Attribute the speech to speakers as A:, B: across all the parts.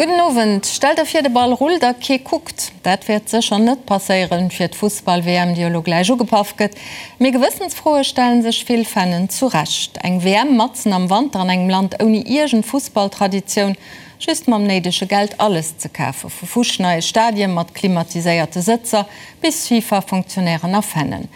A: Gudden Owend. Stell der vir de Ball rullt a kee kuckt. Dat wäert sécher net passéieren fir d'Fussball-WM déi elo gläich ugepaff gëtt. Mee Gewëssensfroe stellen sech vill Fannen zu Recht. Eng WM matzen am Wanter an engem Land ouni iergend Fussballtraditioun, just mam néidege Geld alles ze kafen, vu fuschneie Stadie mat klimatiséierte Sëtzer bis FIFA-Fonctionnairen a Fannen.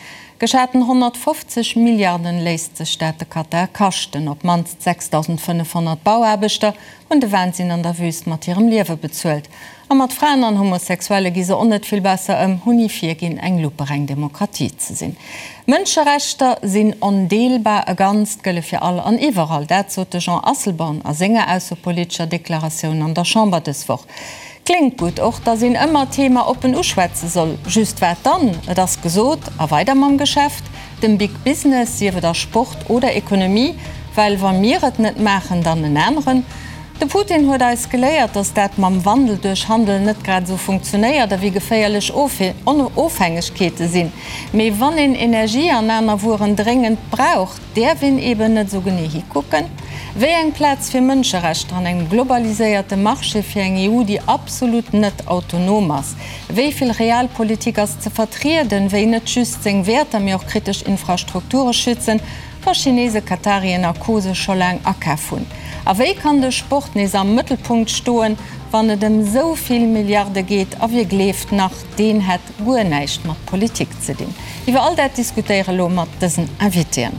A: Geschaten 150 Milliarden léisst sech dat de Katar kaschten. Op d'mannst 6.500 Bauaarbechter hunn de Wahnsinn an der Wüst mat hirem Liewe bezuelt. A mat Fraen an Homosexuelle gi se och net vill besser ëm, hunn ni virginn, eng lupereng Demokratie ze sinn. Mënscherechter sinn ondeelbar, e Ganzt, gëlle fir all an iwwerall. Dat sot de Jean Asselborn a senger aussepolitescher Deklaratioun an der Chamber dës Woch. Kléngt gutt, och datt een ëmmer d'Thema oppen uschwätze soll. Just wat dann? Et ass gesot, a weider mam Geschäft, dem Big Business, sief et a Sport oder Ekonomie, well wa mir et net maachen, dann en aneren. De Putin huet eis geléiert, datt dat mam Wandel duerch Handel net grad esou funktionéiert a wéi geféierlech Ofhängegkeete sinn. Mee wann een Energie an aner Wueren dréngend brauch, däerf een eben net esou genee hikucken. Wéi eng Plaz fir Mënscherechter an engem globaliséierte Marché, fir eng EU, déi absolut net autonom ass? Wéi vill Realpolitik ass ze vertrieden, wéi net just seng Wäerter, mee och kritesch Infrastrukture schützen? Wa Chinese, Katarien a Co sech scho laang akaf hunn. A wéi kann de Sport nees am Mëttelpunkt stoen, wann et ëm sou vill Milliarde geet? A wie gleeft nach, deen hätt guer näischt mat Politik ze dinn? Iwwer all dat diskutéiere elo mat dësen Invitéen.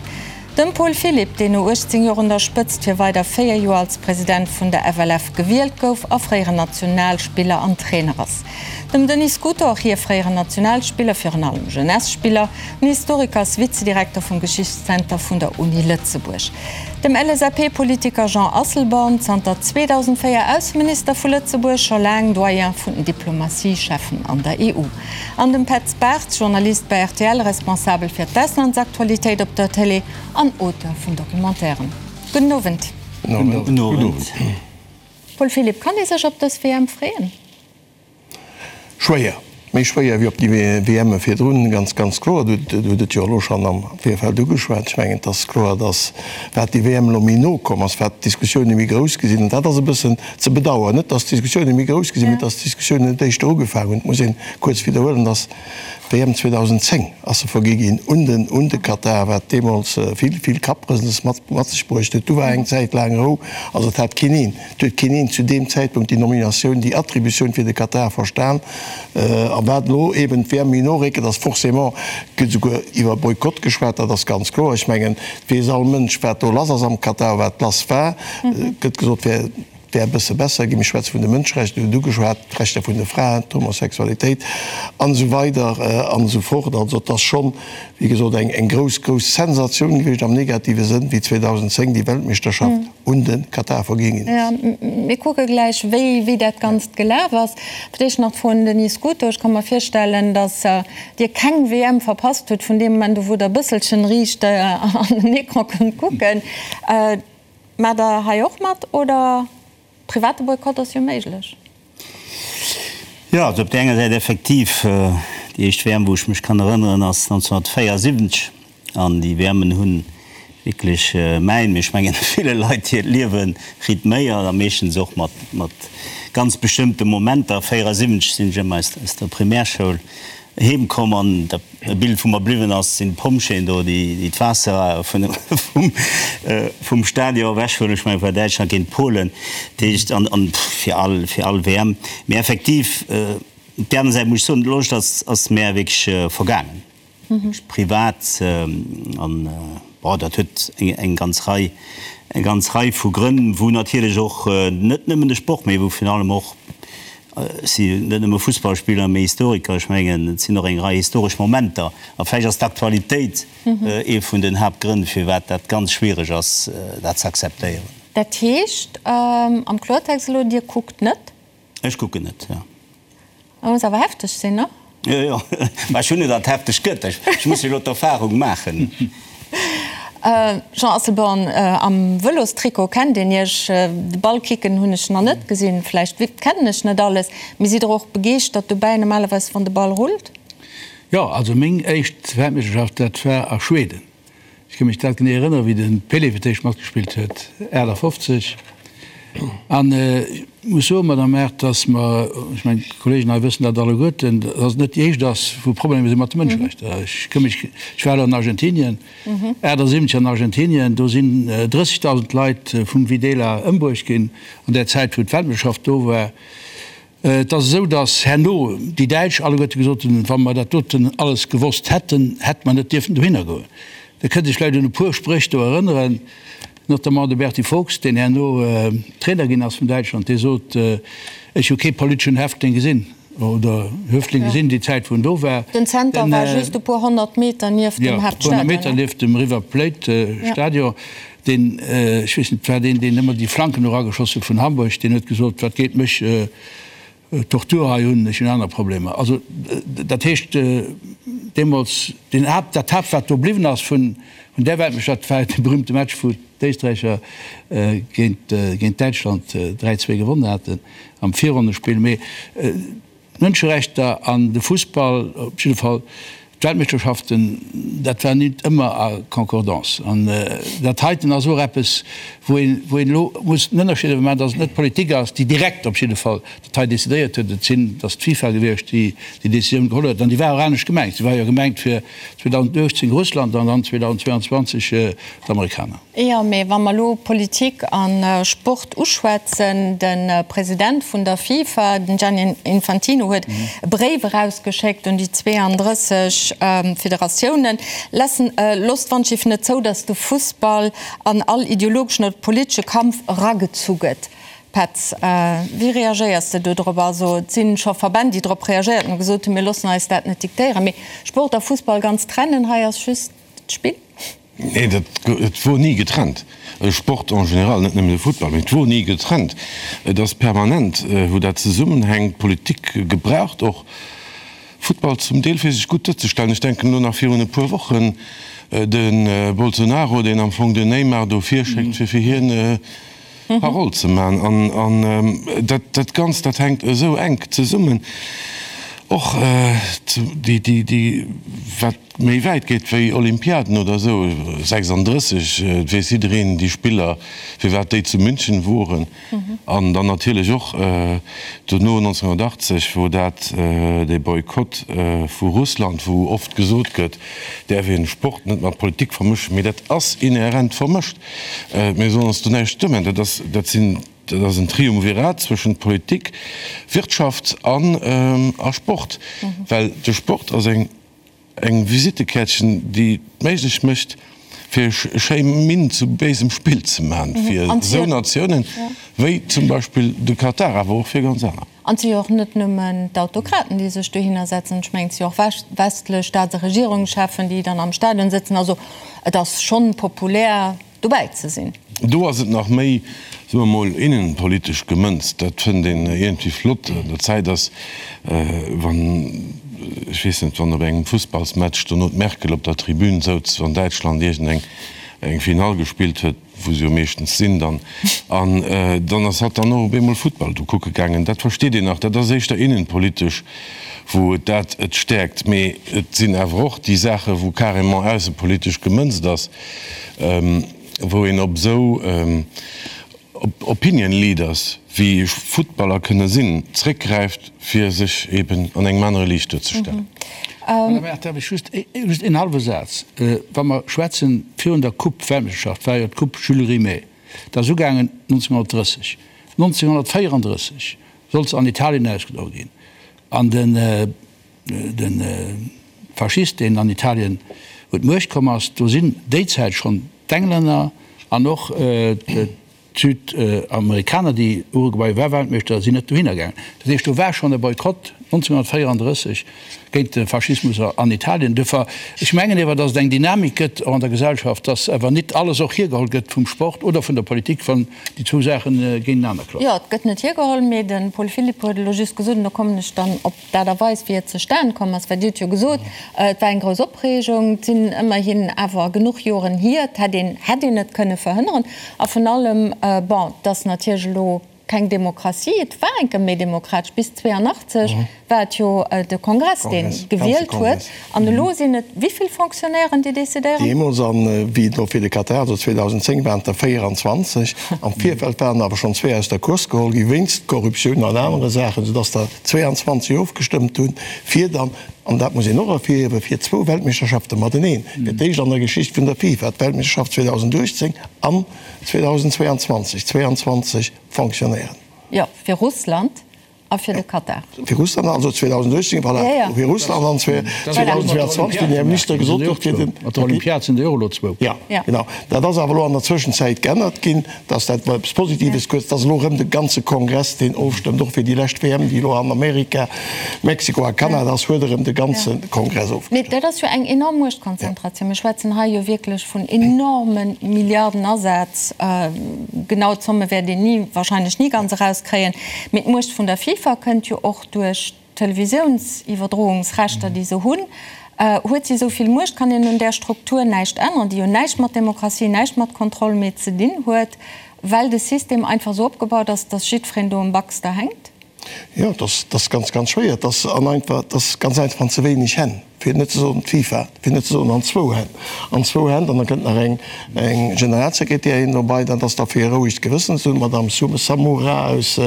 A: Dem Paul Philipp, deen no 18 Joer un der Spëtzt fir weider 4 Joer als President vun der FLF gewielt gouf a fréieren Nationalspiller an Trainer ass. Dem Denis Scuto, och hie fréieren Nationalspiller, virun allem Jeunesse-Spiller. Den Historiker ass Vizedirekter vum Geschichtszenter vun der Uni Lëtzebuerg. Dem LSAP-Politiker Jean Asselborn, zanter 2004 Ausseminister vu Lëtzebuerg, scho laang Doyen vun den Diplomatie-Cheffen an der EU. An dem Petz Bartz, Journalist bei rtl, Responsabel fir d'Auslandsaktualitéit op der Télé an Auteur vun Documentairen. Gudden Owend.
B: Gudden Owend.
A: Paul Philipp, kann ee sech op dës WM freeën?
B: Schwéier, méi schwéier wéi op déi WMe virdrun, ganz, ganz kloer. Du hutt et jo elo schonn am Virfeld ugeschwat. Ech mengen, et ass kloer, datt wat déi WM elo méi no komm ass, wat d'Diskussioune méi grouss gi sinn. An dat ass e bëssen ze bedauern. Net, datt d'Diskussioune méi grouss gi sinn, mee datt d'Diskussiounen net éischter ugefaangen hunn. Et muss ee kuerz widderhuelen, datt d'WM 2010 ass se vergi ginn un den, un de Katar, wat deemools vill, vill Kapprësels mat, mat sech bruecht huet. Du war eng Zäit laang Rou, also et hat keen een. Et huet keen een zu deem Zäitpunkt déi Nominatioun, déi Attributioun fir de Katar verstan. A wat elo eben d'WM méi no réckelt, ass forcément, et gëtt esouguer iwwer Boykott geschwat, dat ass ganz kloer. Ech mengen, et weess all Mënsch, wat do lass ass am Katar, wat lass war. Et gëtt gesot, et wär e bësse besser ginn. Mir schwätze vun de Mënscherechter, Dir hutt ugeschwat, d'Rechter vun de Fraen, d'Homosexualitéit an esou weider an esou fort. Also et ass schonn, wéi gesot, eng grouss, grouss Sensatioun gewiescht am negative Sënn, wéi 2010 déi Weltmeeschterschaft un de Katar vergi ginn ass.
A: Jo, mir kucke gläich, wéi wéi dat Ganzt gelaf ass. Fir d'éischt nach d'Fro un den Denis Scuto. Ech ka mer virstellen, datt Dir keng WM verpasst hutt, vun deem Moment u wou Der e bësselchen riicht an den Ecran kënnt kucken. Maacht Der hei och mat oder? Private Boykott ass jo méiglech.
C: Jo, also op där enger Säit effektiv, déi éischt WM, wou ech mech kann erënneren, ass 1974. An déi WMen hu wierklech mäin, mee ech mengen ville Leit hiert Liewe rythméiert a meeschtens och mat mat ganz bestëmmte Momenter. 74 sinn ech ëmmer aus der Primärschoul heem komm an dat e Bild wou mer bliwwen ass, sinn d'Pompjeeën do, déi d'Waasser vum Stadion ewech huelen. Ech mengen, et war Däitschland géint Polen, dat heescht, an fir all, fir all WM. Mee effektiv, op där aner Säit muss ech soen, d'Loscht ass, ass mär wierklech vergaangen, wierklech privat. An bon, dat huet eng ganz Rei, eng ganz Rei vu Grënn, wou natierlech och net nëmmen de Sport, mee wou virun allem och Ech sinn net nëmme Fussballspiller, mee Historiker. Ech mengen, et sinn och eng Rei historesch Momenter. A vläicht ass d'Aktualitéit ee vun den Haaptgrënn, firwat dat ganz schwiereg ass, dat ze akzeptéieren.
A: Dat heescht am Kloertext elo, Dir kuckt net?
C: Ech kucken net, jo.
A: Dat muss awer hefteg sinn, ne?
C: Jo, jo, mä ech hunn net, datt et hefteg gëtt. Ech muss jo elo d'Erfahrung maachen.
A: Jean Asselborn, am Vëlostrikot kennt een Iech, de Ball kicken hunn ech nach net gesinn, vläicht kennen ech net alles, mee sidd Der och begeeschtert dobäi normalerweis wann de Ball rullt?
D: Jo, also meng éischt Weltmeeschterschaft, dat war a Schweden. Ech ka mech dat genee erënneren, wéi de Pelé fir d'éischt matgespillt huet, 58. An ech muss soen, Madame Err, dass mer, ech mengen, d'Kollegen hei wëssen dat alleguerten, dass et net déi éischt ass, wou Problemer si mat de Mënscherechter. Ech ka mech, ech war elo an Argentinien, 78 an Argentinien, do sinn 30.000 Leit vum Videla ëmbruecht ginn an där Zäit, wou d'Weltmeeschterschaft do war. Et ass esou, datt herno déi Däitsch alleguerte gesot hunn, wa mer dat doten alles gewosst hätten, hätte mer net dierfen dohinner goen. Der kënnt Iech vläicht un e puer Spréch do erënneren, notamment de Berti Vogts, deen herno Trainer ginn ass vun Däitschland, dee sot, Ech hu kee politeschen Häftling gesinn oder Höftling gesinn déi Zäit, wou en do war.
A: Den Zenter war just e puer 100 Meter nieft dem Haaptstadion.
D: Jo, e puer 100 Meter nieft dem River Plate Stadion. Deen, ech weess net, war deen, deen ëmmer déi Flanken erageschoss huet vun Hamburg, deen huet gesot, wat geet mech d'Tortur hei un, ech hunn aner Problemer. Also dat heescht, deemools, deen Haapt, dat Haapt, wat do bliwwen ass vun där Weltmeeschterschaft, war dee berühmte Match, wou d'Éisträicher géint, géint Däitschland 3, 2 gewonnen haten am Virronnespill. Mee D'Mënscherechter an de Fussball, op jidde Fall d'Weltmeeschterschaften, dat war nit ëmmer a Concordance. An dat heiten ass och eppes, wou een, wou een elo muss den Ënnerscheed awer maachen, datt et net d'Politik ass, déi direkt op jidde Fall dat hei decidéiert huet. Et sinn, et ass d'FIFA gewiescht, déi déi Décisioun geholl huet. An déi war och anescht gemengt. Se war jo gemengt fir 2018 Russland an dann 2022 d'Amerikaner.
A: Jo, mee wa mer elo Politik a Sport uschwätzen, de President vun der FIFA, den Gianni Infantino, huet e Bréif erausgeschéckt un déi 32 Federatiounen, Lassen, loosst d'Wandschiff net zou, datt de Fussball an all ideologeschen oder politesche Kampf eragezu gëtt. Petz, wéi reagéiers de do drop? Also et si scho Verbänn, déi drop reagéiert hunn a gesot hunn, mir loossen eis dat net diktéieren. Mee Sport a Fussball ganz trennen, hei ass just d'Spill.
B: Nee, dat, et wor ni getrennt. Sport en général, net nëmmen de Futtball, mee et wor ni getrennt. Et ass permanent, wou dat zesummenhänkt. D'Politik gebraucht och Futtball zum Deel, fir sech gutt duerzestellen. Ech denken elo nach virun e puer Wochen de Bolsonaro, deen am Fong den Neymar do virschéckt, fir fir hien Parole ze man. An dat, dat Ganzt, dat hänkt esou enk zesummen. Och déi, déi, déi, wat méi wäit geet wéi Olympiaden oder esou, 36, et weess jiddereen, déi Spiller, firwat déi zu München woren. An dann natierlech och dono 1980, wou dat, dee Boykott vu Russland, wou oft gesot gëtt, däerf een Sport net mat Politik vermëschen, mee dat ass inhärent vermëscht. Mir sollen ons do näischt duermaachen. Dat ass, dat sinn, dat ass en Triumvirat zwëschent Politik, Wirtschaft an a Sport, well de Sport ass eng, eng Visittekäertchen, déi et méiglech mécht, fir schéi Minn zu béisem Spill ze maachen, fir esou Natiounen wéi zum Beispill de Katar, awer och fir ganz aner.
A: An et si jo och net nëmmen d'Autokraten, déi sech dohinner setzen. Ech mengen, et si jo och westlech Staats a Regierungscheffen, déi dann am Stadion sëtzen. Also et ass schonn populär, dobäi ze sinn.
B: Do ass et nach méi, soe mer mol, innenpolitesch gemënzt. Dat fënnt een iergendwéi flott. An der Zäit ass, wann, ech weess net, wann op engem Fussballsmatch dono d'Merkel op der Tribün souz, wann Däitschland iergendeng eng Finall gespillt huet, wou se jo meeschtens sinn dann, an dann ass hatt dann och op eemol Futtball do kucke gaangen. Dat versteet een nach, dat ass éischter innenpolitesch, wou et dat et stäerkt. Mee et sinn awer och déi Saache wou carrément aussepolitesch gemënzt ass, wou een op esou Opinion Leaders, wéi Futtballer kënne sinn, zréckgräift, fir sech eben an engem anere Liicht duerzestellen.
D: Madame Err, darf ech just, just een hallwe Saz? Wa mer schwätzen, virun der Coupe Weltmeeschterschaft war jo d'Coupe Jules Rimet, dat ass ugaangen 1930. 1934 sollt se an Italien ausgedroe ginn an den, de Faschist, deen an Italien un d'Muecht komm ass, do sinn déi Zäit schonn d'Englänner an och d'Südamerikaner, déi Uruguay war Weltmeeschter, sinn net dohinner gaangen. Dat heescht, do war schonn e Boykott 1934 géint de Faschismus an Italien. Duerfir, ech mengen ewer, datt et eng Dynamik gëtt och an der Gesellschaft, datt awer nit alles och hiergeholl gëtt vum Sport oder vun der Politik, wann déi zwou Saache géintenaner
A: klappen. Jo, et gëtt net hiergeholl, mee de Paul Philipp huet elo just gesot, an do kommen ech dann op D'Aart a Weis, wéi et zustan komm ass, well Dir hutt jo gesot, et war eng grouss Opreegung, et sinn ëmmerhin awer genuch Joren hier, et hätt een, hätt een et kënne verhënneren. A vun allem, bon, et ass natierlech elo. keng Demokratie. Et war eng Kéier méi demokratesch, bis 82 war et jo de Kongress, dee gewielt huet. An elo sinn et wéi vill Fonctionnairen, déi decidéieren?
B: Deemools, an wéi et elo fir de Katar, also 2010, waren et der 24. Am Virfeld waren awer schonn zwee aus der Course geholl gi wéinst Korruptioun an anere Saachen, soudass der 22 ofgestëmmt hunn, fir dann, an dat muss een och ervirhiewen, fir zwou Weltmeeschterschafte mateneen, fir d'éischt an der Geschicht vun der FIFA, d'Weltmeeschterschaft 2018 an 2022, 22 Fonctionnairen.
A: Jo, fir Russland a fir de Katar.
B: Fir Russland also 2018, voilà, fir Russland an 2022, wéi den Här Minister gesot huet, fir den.
D: Mat der Olympiad sinn der jo och elo zwou.
B: Jo, genau. Dat ass awer elo an der Zwëschenzäit geännert ginn, dass dat war eppes Positives kuerz, dass elo erëm de ganze Kongress deen ofstëmmt, och fir déi lescht WM, déi elo an Amerika, Mexiko a Kanada ass, huet erëm de ganze Kongress ofgestëmmt.
A: Mee dat ass jo eng enorm Muechtkonzentratioun. Mir schwätzen hei jo wierklech vun enorme Milliardenasaz. Genau d'Zomme wäert een ni, wahrscheinlech ni ganz erauskréien. Mee d'Muecht vun der FIFA kënnt jo och duerch d'Televisiouns-Iwwerdroungsrechter, déi se hunn. Huet si esou vill Muecht? Kann een un där Struktur näischt änneren, déi jo näischt mat Demokratie, näischt mat Kontroll méi ze dinn huet, well de System einfach esou opgebaut ass, dass jiddwereen do um Baxter hänkt?
B: Jo, et ass ganz, ganz schwéier. Et ass an einfach, et ass ganz einfach an ze wéineg Hänn, fir net ze soen d'FIFA, fir net ze soen an zwou Hänn, an zwou Hänn. An da kënnt nach eng, eng Generalsekretärin dobei, dat ass da fir e rouegt Gewëssen ze hunn, d'Madame Samoura aus,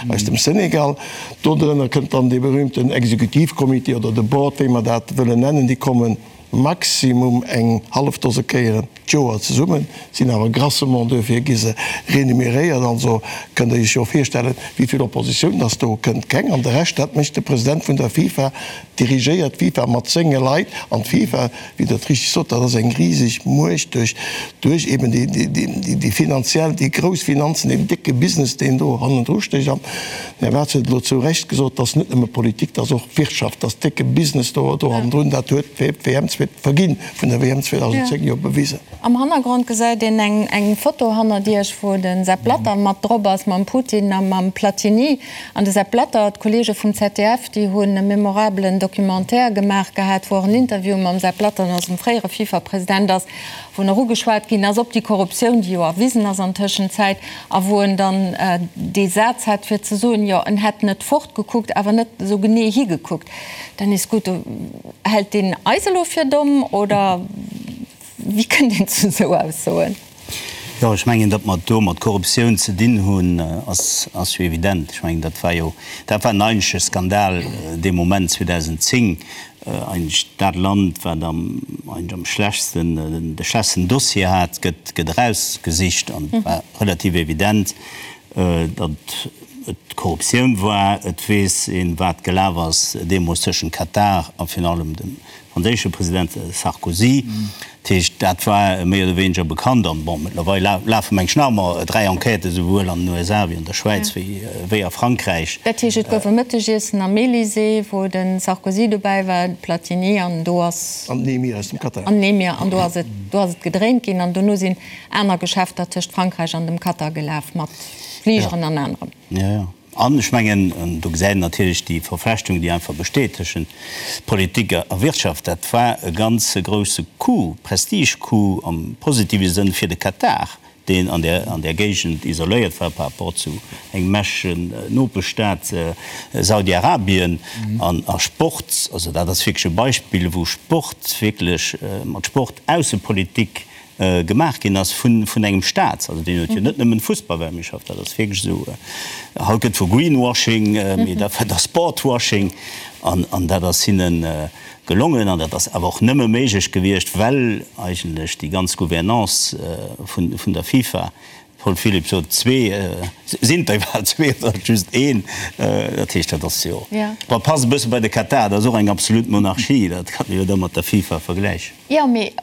B: aus dem Senegal. Dodrënner kënnt dann dee berühmten Exekutivcomité oder de Board, wéi mer dat wëllen nennen, déi kommen maximum eng hallef Dose Kéieren d'Joer zesummen, sinn awer grassement duerfir gi se renuméréiert. Also kënnt Der Iech jo virstellen, wéi vill Oppositioun dass do kënnt. Keng. An de Rescht, dat mécht de President vun der FIFA, dirigéiert d'FIFA mat senge Leit. An d'FIFA, wéi Der et richtig sot, dat ass eng riseg Muecht duerch, duerch eben déi, déi, déi finanziell, déi grouss Finanzen, deen décke Business, deen do hannendru stécht. An den Här Warz huet elo zu Recht gesot, dat ass net nëmme Politik, dat ass och Wirtschaft, dat ass décke Business do, do hannendrun. Dat huet d'WM, d'Verginn vun der WM 2010 jo bewisen.
A: Am Hannergrond gesäit een eng Foto hannert Iech, wou de Sepp Blatter mat drop ass, mam Putin a mam Platini. An de Sepp Blatter, d'Kolleege vum ZDF, déi hunn e memorabelen Documentaire gemaach gehat, wou och en Interview mam Sepp Blatter, eisem fréiere FIFA-President ass, wou nach ugeschwat ginn ass op déi Korruptioun, déi jo erwisen ass an Tëschenzäit, a wou en dann dee Saz hat fir ze soen, jo en hätt net fortgekuckt, awer net esou genee higekuckt. Dann is gutt. Hält deen eis elo fir domm oder wéi kënnt een zu esou Aussoen?
C: Jo, ech mengen, datt mer et do mat Korruptioun ze dinn hunn, ass ass jo evident. Ech mengen, dat war jo, dat war en eigentleche Skandal dee Moment 2010, eigentlech dat Land, wat am eigentlech am schlechtsten, de schlechtsten Dossier hat, gëtt gëtt erausgesicht an et war relativ evident, datt et Korruptioun war. Et weess een, wat gelaf ass deemools tëschent Katar a virun allem dem franséische President Sarkozy. Dat heescht, dat war méi oder wéineger bekannt. An, bon, mëttlerweil lafe meng ech nach ëmmer 3 Enquêten, esouwuel an den USA wéi an der Schwäiz wéi a Frankräich.
A: Dat heescht, et gouf e Mëttegiessen am Elysée, wou de Sarkozy dobäi war, de Platini, an do ass.
B: An den Emir aus dem Katar.
A: An den Emir, an do ass et, do ass et gedréint ginn. An dono sinn aner Geschäfter tëscht Frankräich an dem Katar gelaf, mat Fligeren an anerem.
C: Jo, jo. An ech mengen, do gesäit een natierlech déi Verflechtung, déi einfach besteet tëschent Politik a Wirtschaft. Dat war e ganz grousse Coup, Prestige-Coup am positive Sënn fir de Katar, deen an där, an där Géigend isoléiert war par rapport zu engem mächtegen Nopeschstaat, Saudi-Arabien. An a Sport, also dat ass wierklech e Beispill, wou Sport wierklech mat Sport Aussepolitik gemaach ginn ass vun engem Staat, also deen huet jo net nëmmen Fussballweltmeeschterschaft, dat ass wierklech esou, haut gëtt vu Greenwashing, mee dat war da Sportwashing an an dat ass hinne gelongen an dat ass awer och nëmme méiglech gewiescht, well eigentlech déi ganz Gouvernance vun vun der FIFA, Paul Philipp sot zwee, sinn et der iwwerhaapt zwee oder just een, dat heescht dat ass jo, bon, passt e bësse bei de Katar, dat ass och eng absolut Monarchie, dat kann ee jo da mat der FIFA vergläichen.
A: Jo, mee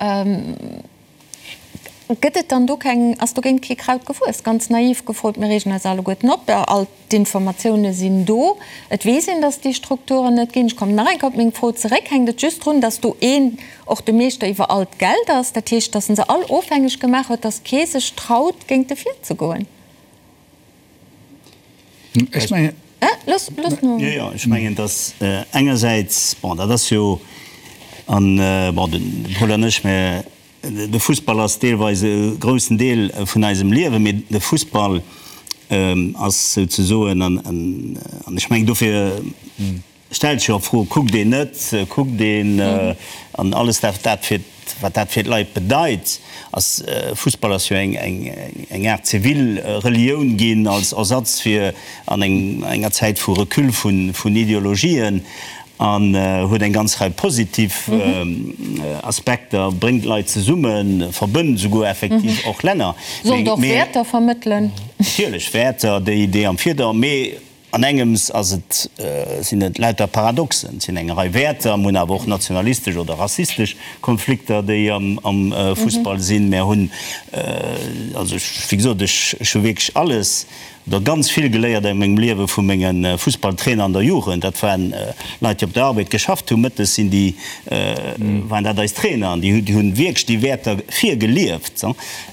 A: gëtt et dann do keng, ass dogéint kee Kraut gewuess? Ganz naiv gefrot, mir reegen eis alleguerten op, all d'Informatioune sinn do, et weess een, datt et déi Strukturen net ginn. Ech kommen nach eng Kéier op meng Fro zeréck, Hänkt et just drun, datt do een och de Meeschter iwwer all d'Geld ass, dat heescht, datt en se all ofhängeg gemaach huet, datt kee sech traut, géint e virzegoen?
D: Ech mengen.
A: Looss, looss no.
C: Jo, jo, ech mengen, dass engersäits, bon, dat ass jo, an, bon, de Paul an ech, mir, de Fussball ass deelweis e groussen Deel vun eisem Liewen, mee de Fussball. Ass souzesoen, an ech mengen dofir stellt sech jo och d'Fro, kuckt een net, kuckt een, an alles dat dat fir, wat dat fir d'Leit bedeit, ass, Fussball ass jo eng eng Aart zivil Relioun ginn als Ersatz fir an enger Zäit vu Recul vun Ideologien. An huet eng ganz Rei positiv Aspekter, bréngt Leit zesummen, verbënnt esouguer effektiv och Länner.
A: Sollt och Wäerter vermëttelen.
C: Natierlech, Wäerter, déi am Virder-, mee an engems ass et, sinn et lauter Paradoxen. Et sinn eng Rei Wäerter, mir hunn awer och nationalistesch oder rassistesch Konflikter, déi am Fussball sinn. Mir hunn, also ech, wéi gesot, ech hu wierklech alles Der ganz vill geléiert a mengem Liewe vu menge Fussballtrainer an der Jugend. Dat waren Leit, déi op der Arbed geschafft hunn. Mëttes sinn déi, waren dat eis Trainer an déi hunn wierklech déi Wäerter virgelieft.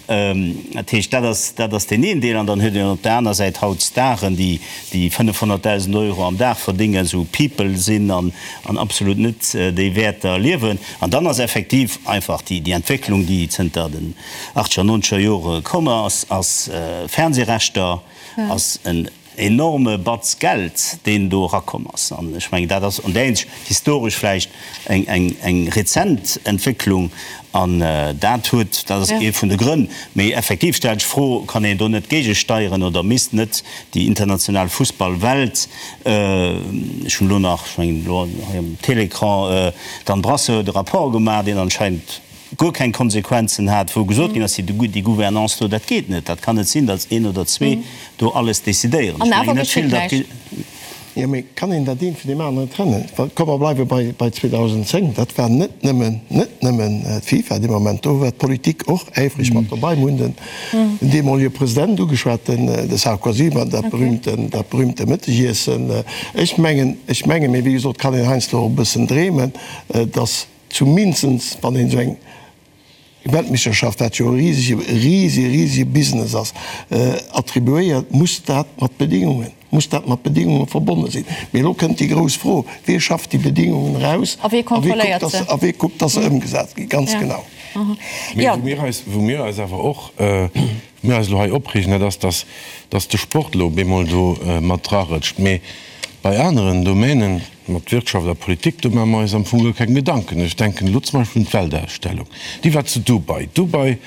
C: Dat heescht, dat ass, dat ass deen een Deel. An dann huet een op der aner Säit haut Staren, déi, déi 500.000 Euro am Dag verdéngen, esou People sinn an, an absolut net déi Wäerter liewen. An dann ass effektiv einfach déi, déi Entwécklung, déi zënter den, Achtzeger, nonzeger Jore komm ass, ass Fernsehrechter, ass en enorme Batz Geld, deen do erakomm ass. An ech mengen, dat ass an där Hinsicht historesch vläicht eng, eng, eng rezent Entwécklung. An dat huet, dat ass ee vun de Grënn. Mee effektiv stellt sech d'Fro, Kann een do net géigesteieren oder misst net déi international Fussballwelt, ech hunn elo nach, ech mengen elo hei um Télécran, d'Anne Brasseur huet e Rapport gemaach, deen anscheinend, guer keng Konsequenzen hat, wou gesot ginn ass, déi Gouvernance do, dat geet net, dat kann net sinn, datt een oder zwee do alles decidéieren.
A: Ech mengen net vill, datt.
B: Jo, mee kann een dat eent vun deem aneren trennen? Well komm, mer bleiwe bei 2010, dat war net nëmmen, net nëmmen d'FIFA dee Moment, do war d'Politik och äifreg mat dobei. Mir hunn den deemolege President ugeschwat, den de Sarkozy, mat dat berühmten, dat berühmte Mëttegiessen. Ech mengen, ech mengen, mee wéi gesot, kann een heiansdo och e bëssen dreemen, datt, Zumindest wann een esou eng Weltmeeschterschaft, wat jo e risege, risege, risege Business ass, attribuéiert, muss dat mat Bedingungen, muss dat mat Bedingunge verbonne sinn. Mee elo kënnt déi grouss Fro, Wie schafft déi Bedingungen eraus
A: a wie kontrolléiert se?
B: A wie kuckt, dass se ëmgesat ginn? Ganz genau.
E: Mee wou mir eis, wou mir eis awer och, wou mir eis elo hei opreegen, dat ass, dass, dass de Sport elo op eemol do mat drarëtscht. Mee bei aneren Domänen, Mat Wirtschaft a Politik, do maache mer eis am Fong guer keng Gedanken. Ech denken elo zum Beispill un d'Weltausstellung, déi war zu Dubai. Dubai,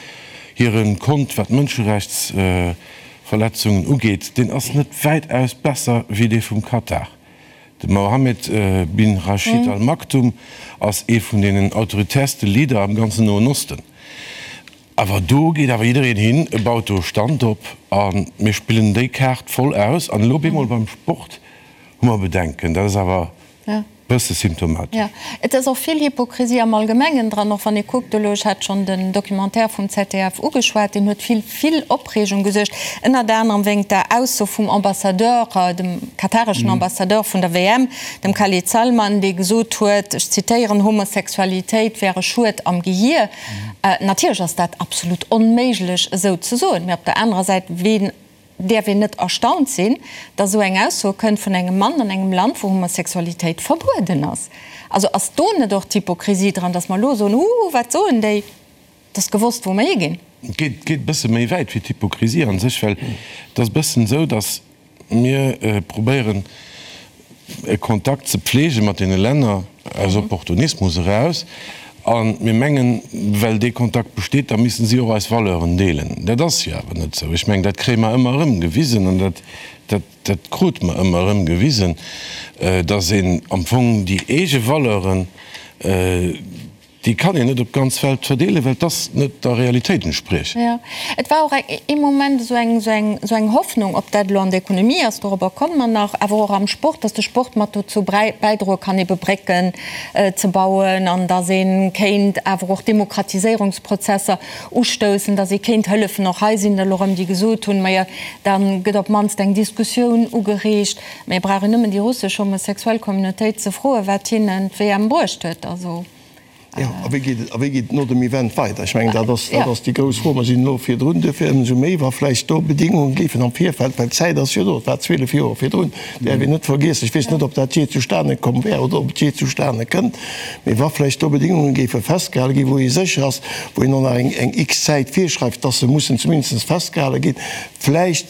E: hire Kont, wat d'Mënscherechtsverletzungen ugeet, deen ass net wäitaus besser wéi dee vum Katar. De Mohammed bin Rashid Al Maktoum ass ee vun deenen autoritäerste Leader am ganzen Noen Osten. Awer do geet awer jiddereen hin, e baut do e Stand op a mir spillen déi Kaart voll aus. An elo bemol beim Sport hu mer Bedenken. Dat ass awer e bësse symptomatesch.
A: Jo, et ass och vill Hypokrisie am Allgemengen dran, och wann ee kuckt elo, ech hat schonn den Documentaire vum ZDF ugeschwat, deen huet vill, vill Opreegung gesuergt, ënnert anerem wéingt der Ausso vum Ambassadeur, dem katareschen Ambassadeur vun der WM, dem Khalid Salman, dee gesot huet, ech zitéieren, Homosexualitéit wär e Schued am Gehier. Natierlech ass dat absolut onméiglech esou ze soen, mee op der anerer Säit, ween däerf een net erstaunt sinn, datt esou eng Ausso kënnt vun engem Mann an engem Land, wou Homosexualitéit verbueden ass? Also ass do net och d'Hypokrisie dran, datt mer elo soen, Huh, wat soen déi? Et ass gewosst, wou mer higinn.
E: Et geet e bësse méi wäit wéi d'Hypokrisie a sech, well et ass e bëssen esou, datt Mir probéieren e Kontakt ze pflege mat deene Länner aus Opportunismus eraus a mir mengen, well dee Kontakt besteet, da missten si och eis Valeuren deelen. Dat ass jo awer net esou. Ech mengen, dat kréie mer ëmmer erëm gewisen an dat, dat, dat krute mer ëmmer erëm gewisen, dass een am Fong déi eege Valeuren, Déi kann een net op d'ganz Welt verdeelen, well dass net der Realitéit entspriechen.
A: Jo, et war och ee Moment esou eng, esou eng, esou eng Hoffnung, ob dat elo an der Ekonomie ass, dorobber komme mer nach, awer och am Sport, dass de Sport mat dozou bäidroe kann, ebe Brécken ze bauen an dass ee kéint awer och Demokratiséierungsprozesser ustoussen, dass ee kéint hëllefen. Och hei sinn der elo erëm, déi gesot hunn, majo, da gëtt op d'mannst eng Diskussioun ugereegt. Mä et brauch een nëmmen déi russesch homosexuell Communautéit ze froen, wat hinnen d'WM bruecht huet. Also.
B: Jo, a wéi geet et, a wéi geet et no dem Event weider? Ech mengen, dat ass, dat ass déi grouss Fro. Mer sinn elo virdrun, duerfir ëmsou méi, wa vläicht do Bedingungen géifen am Virfeld, well d'Zäit ass jo do, et war 12 Joer virdrun, däerf een net vergiessen. Ech weess net, ob dat jee zustane komm wär oder ob et jee zustane kënnt, mee wa vläicht do Bedingungen géife festgehale ginn, wou ee sécher ass, wou een och nach eng, eng x Zäit virschreift, dass se mussen zumindest festgehale ginn, vläicht.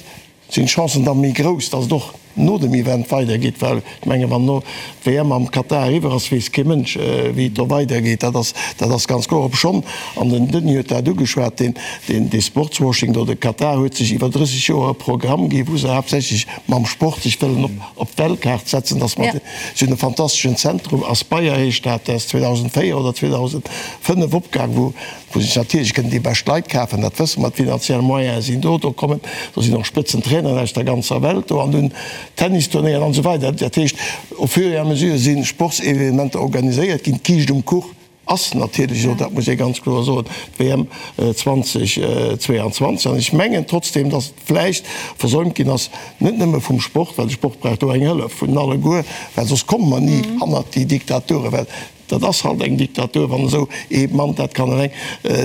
B: Sinn d'Chancen da méi grouss, dass et och no dem Event weidergeet? Well ech mengen, wann elo d'WM am Katar eriwwer ass, weess kee Mënsch, wéi et do weidergeet. Dat ass, dat ass ganz kloer. Obschonn, an den Denis huet dat ugeschwat, deen, deen, dee Sportswashing do, de Katar huet sech iwwer 30 Joer e Programm gi wou se haaptsächlech mam Sport sech wëllen op, op d'Weltkaart setzen, dass mer, si hunn e fantasteschen Zentrum, Aspire heescht dat, dat ass 2004 oder 2005 opgaang, wou, wou sech natierlech kënnen déi bescht Leit kafen, dat wësse mer, d'finanziell Moyene sinn do, do kommen, do sinn och Spëtzentraineren aus der ganzer Welt do an hunn Tennisturnéieren an esou weider. Dat heescht, au fur et à mesure si Sportsevenementer organiséiert ginn. D'Kiischt um Kuch ass natierlech elo, dat muss ee ganz kloer soen, d'WM 2022. An ech mengen trotzdeem, datt et vläicht versäumt ginn ass, net nëmme vum Sport, well de Sport brauch do eng Hëllef vun alleguer, well soss komme mer ni hannert déi Diktaturen, well Dat ass halt eng Diktatur, wann esou ee Mann dat kann eleng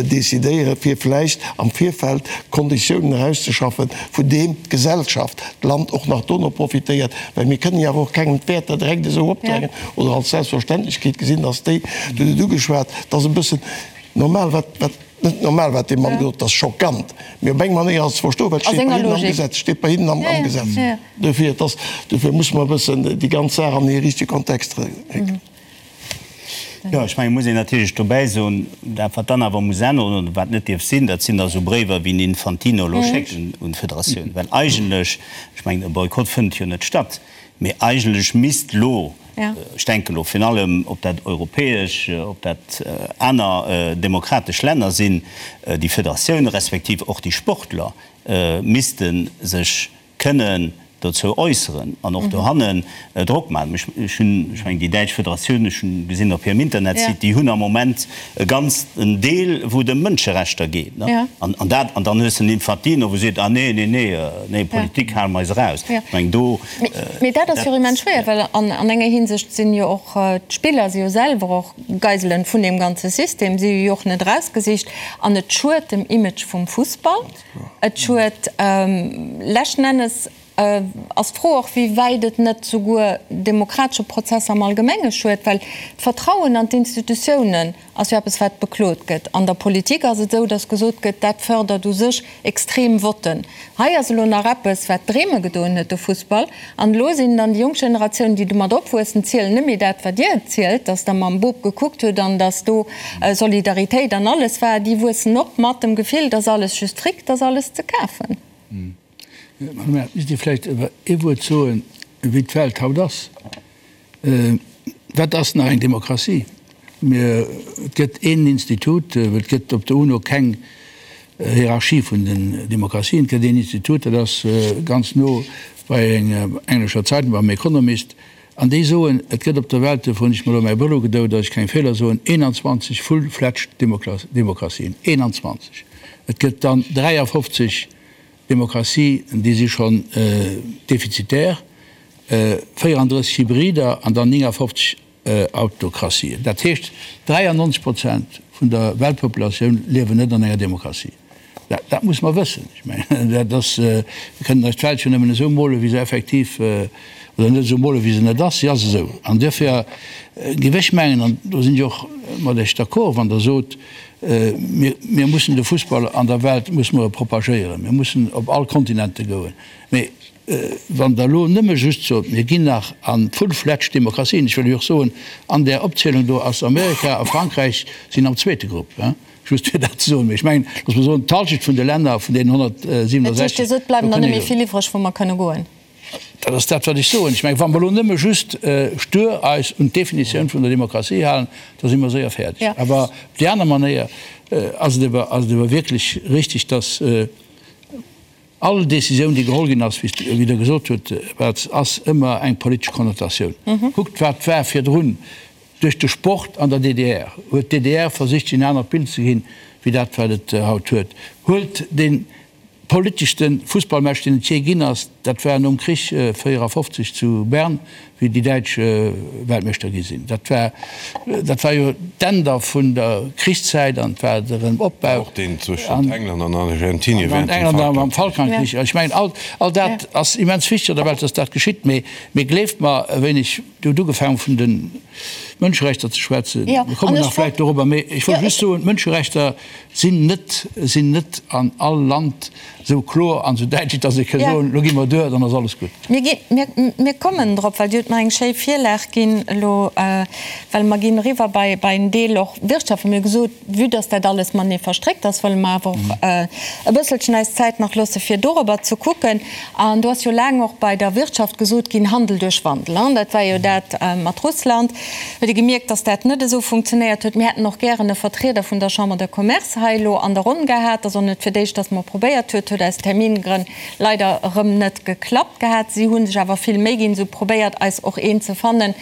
B: decidéieren, fir vläicht am Virfeld Konditiounen erauszeschaffen, vun deem d'Gesellschaft, d'Land och nach dono profitéiert. Well mir kënnen jo awer och kengem d'Wäerter direkt esou opdrängen oder als Selbstverständlechkeet gesinn, dass déi, Du hutt et ugeschwat, et ass e bëssen normal, wat, wat, net normal, wat dee Mann gesot huet, et ass schockant, mee op eng Manéier ass et ze verstoen, well et steet bei hinnen am Gesetz, steet bei hinnen am Gesetz. Dofir, et ass, dofir musse mer e bëssen déi ganz Saach an hir richtege Kontext récken.
C: Jo, ech mengen, et muss een natierlech dobäi soen, dat wat dann awer muss änneren oder wat net dierf sinn, dat sinn da sou Bréiwer wéi den Infantino elo schéckt un d'Federatioun. Well eigentlech, ech mengen, e Boykott fënnt jo net statt, mee eigentlech misst elo, ech denken elo virun allem, ob dat europäesch, ob dat aner demokratesch Länner sinn, déi Federatioune respektiv och déi Sportler misste sech kënnen dozou äusseren an och dohannen Drock maachen. Ech hunn, ech mengen déi däitsch Federatioun, ech hunn gesinn op hirem Internetsite, déi hunn am Moment e ganzen Deel, wou et ëm Mënscherechter geet. An an dat, an dann hues de den Infantino, wou seet, ah nee, nee, nee, nee, Politik hale mer eis eraus. Ech mengen do.
A: Mee dat ass jo och immens schwéier, well an enger Hinsicht sinn jo och d'Spiller si jo selwer och Geiselen vun deem ganze System, si hu jo och net erausgesicht an et schued dem Image vum Fussball. Et schued. Leschten Ennes ass d'Fro och, wéi wäit et net souguer demokratesche Prozesser am Allgemenge schued, well d'Vertrauen an d'Institutiounen ass jo eppes, wat beklot gëtt. An der Politik ass et esou, datt gesot gëtt, dat fërdert u sech extrem Votten. Hei ass elo nach eppes, wat Dreeme gedoen huet, de Fussball. An elo sinn dann déi jonk Generatiounen, déi domat opwuessen, zielen net méi dat, wat Dir zielt, datt Der mam Bop gekuckt hutt an datt do Solidaritéit an alles war. Déi wuessen op mat dem Gefill, dass alles just Fric, dass alles ze kafen.
D: Madame Err, misst Dir vläicht awer ee Wuert soen, wéi d'Welt haut ass. Wat ass nach eng Demokratie? Mir, et gëtt een Institut, well et gëtt op der UNO keng Hierarchie vun den Demokratien. Et gëtt een Institut, dat ass ganz no bei enger englescher Zeitung, beim Economist, An déi soen, et gëtt op der Welt, dofir hunn ech mer elo mäi Brëll ugedout, datt ech keng Feeler soen, 21 full-fledged Demokratien. 21! Et gëtt dann 53 Demokratie, déi si schonn defizitär, 34 Hybrider an dann 59 Autokratien. Dat heescht, 93 Prozent vun der Weltpopulatioun liewen net an enger Demokratie. Dat muss mer wëssen. Ech mengen, dat ass, mir kënnen eis d'Welt jo nëmmen esou molen, wéi se effektiv, oder net esou molen, wéi se net ass. Si ass esou. An duerfir géif ech mengen, an do sinn ech och mat Iech d'accord, wann Der sot, mir, mir mussen de Fussball an der Welt musse mer e propagéieren, mir mussen op all Kontinente goen. Mee wann Der elo nëmme just sot, mir ginn nach a full-fledged Demokratien, ech wëll lech och soen, an där Opzielung do ass Amerika a Frankräich sinn am zweete Grupp, Just fir dat ze soen. Mee ech mengen, loosse mer soen, d'Halschent vun de Länner, vun deenen 167.
A: Dat heescht, Dir sot, et bleiwen der net méi vill iwwreg, wou mer kënne goen.
D: Dat ass dat, wat ech soen. Ech mengen, wa mer elo nëmme just stur eis un d'Definitioun vun der Demokratie halen, da si mer séier fäerdeg. Awer op déi aner Manéier ass et awer, ass et awer wierklech richtig, dass all Décisioun, déi geholl ginn ass, wéi Der gesot hutt, Här ass ëmmer eng politesch Konnotatioun. Kuckt, wat war virdrun. Duerch de Sport an der DDR huet d'DDR versicht, sech en anert Bild ze ginn, wéi dat, wat et haut huet. Huelt dee politeschste Fussballmatch, deen et jee ginn ass, dat war nom Krich 54 zu Bern, wéi déi Däitsch Weltmeeschter gi sinn. Dat war, dat war jo d'Enn da vun der Krichszäit an et war de Erëm-Opbau.
E: Och deen zwëschent England an Argentinien
D: während dem Falkland. Am Falklandkrich. Ech mengen, all, all dat ass immens wichteg an der Welt, dass dat geschitt. Mee, mee gleeft mer, e wéineg, Dir hutt ugefaangen, vun de Mënscherechter ze schwätzen. Mir kommen nach vläicht dorobber. Mee ech wollt just soen, d'Mënscherechter sinn net, sinn net an all Land. Esou kloer an esou däitlech, dass ee ka soen, elo gi mer duer, dann ass alles gutt.
A: Mir gi, mir, mir kommen drop, well Dir hutt mer eng schéi Virlag ginn elo, well mer ginn eriwwer bei, bei en Deel och Wirtschaft. Mir hu gesot, vue dass dat alles matenee verstréckt ass, wëlle mer awer och e bësselchen eis Zäit nach loosse fir dorobber ze kucken. An do ass jo laang och bei der Wirtschaft gesot ginn, Handel duerch Wandel, hein, dat war jo dat mat Russland. Huet ee gemierkt, dass dat net esou funktionéiert huet. Mir hätten och gären e Vertrieder vun der Chambre de Commerce hei elo an der Ronn gehat. Ass och net fir d'éischt, dass mer probéiert huet, huet aus Termingrënn leider erëm net geklappt gehat. Si hu sech awer vill Méi ginn, se hu probéiert, eis och een ze fannen,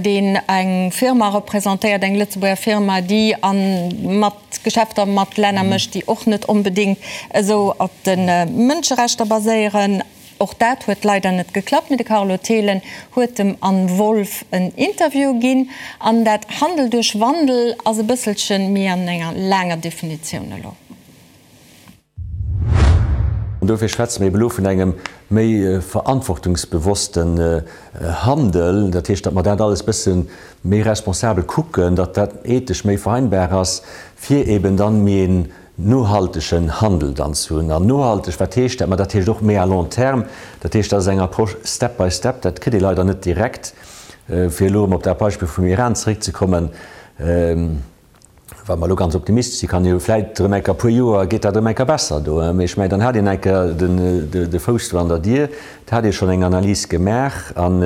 A: deen eng Firma representéiert, eng Lëtzebuerger Firma, déi a mat Geschäfter mat Länner mécht, déi och net onbedéngt esou op de Mënscherechter baséieren. Och dat huet leider net geklappt, mee de Carlo Thelen huet dem Anne Wolff en Interview ginn. An dat Handel duerch Wandel ass e bësselche méi an enger laanger Definitioun elo.
F: An dofir schwätze mir eben elo vun engem méi verantwortungsbewossten Handel. Dat heescht, datt mer dat alles bësse méi responsabel kucken, datt dat ethesch méi vereinbar ass, fir eben dann méi een nohaltegen Handel dann ze hunn. An nohalteg, wat heescht dat? Ma dat heescht och méi à long terme. Dat heescht, dat ass eng Approche step by step. Dat kritt ee leider net direkt. Fir elo erëm op dat Beispill vum Iran zeréckzekommen, wa mer elo ganz optimistesch sinn, kann jo vläicht erëm eng Kéier e puer Joer geet dat erëm eng Kéier besser do. Mee ech mengen, dann hat een eng Kéier de Fouss do an der Dier, da hat ee schonn eng Analys gemaach. An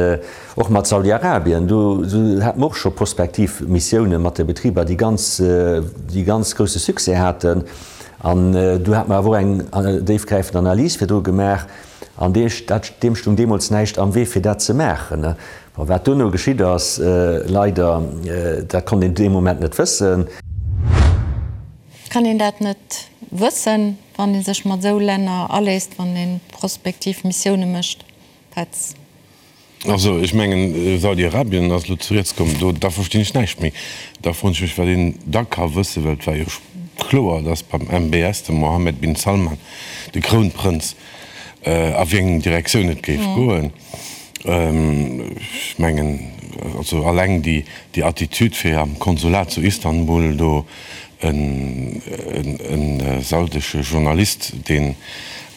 F: Och mat Saudi-Arabien, do hate mer och scho prospektiv Missioune mat de Betriber, déi ganz, déi ganz grousse Succès haten. An do hate mer awer och eng déifgräifend Analys virdru gemaach. An dee, dat, deem stoung deemools näischt am Wee, fir dat ze maachen. Bon, wat duerno geschitt ass, leider, dat konnt een dee Moment net wëssen.
A: Kann een dat net wëssen, wann ee sech mat esou Länner aléisst, wann ee prospektiv Missioune mécht, Petz?
E: Also, ech mengen, Saudi-Arabien ass elo zu Rieds komm, do, da verstinn ech näischt méi. Da froen ech mech, wat een da ka wëssen, well et war jo kloer, datt beim MBS, dem Mohammed bin Salman, de Krounprënz, a wéi eng Direktioun et géif goen. Ech mengen, also alleng déi, déi Attitüd, fir am Konsulat zu Istanbul do en saudesche Journalist, deen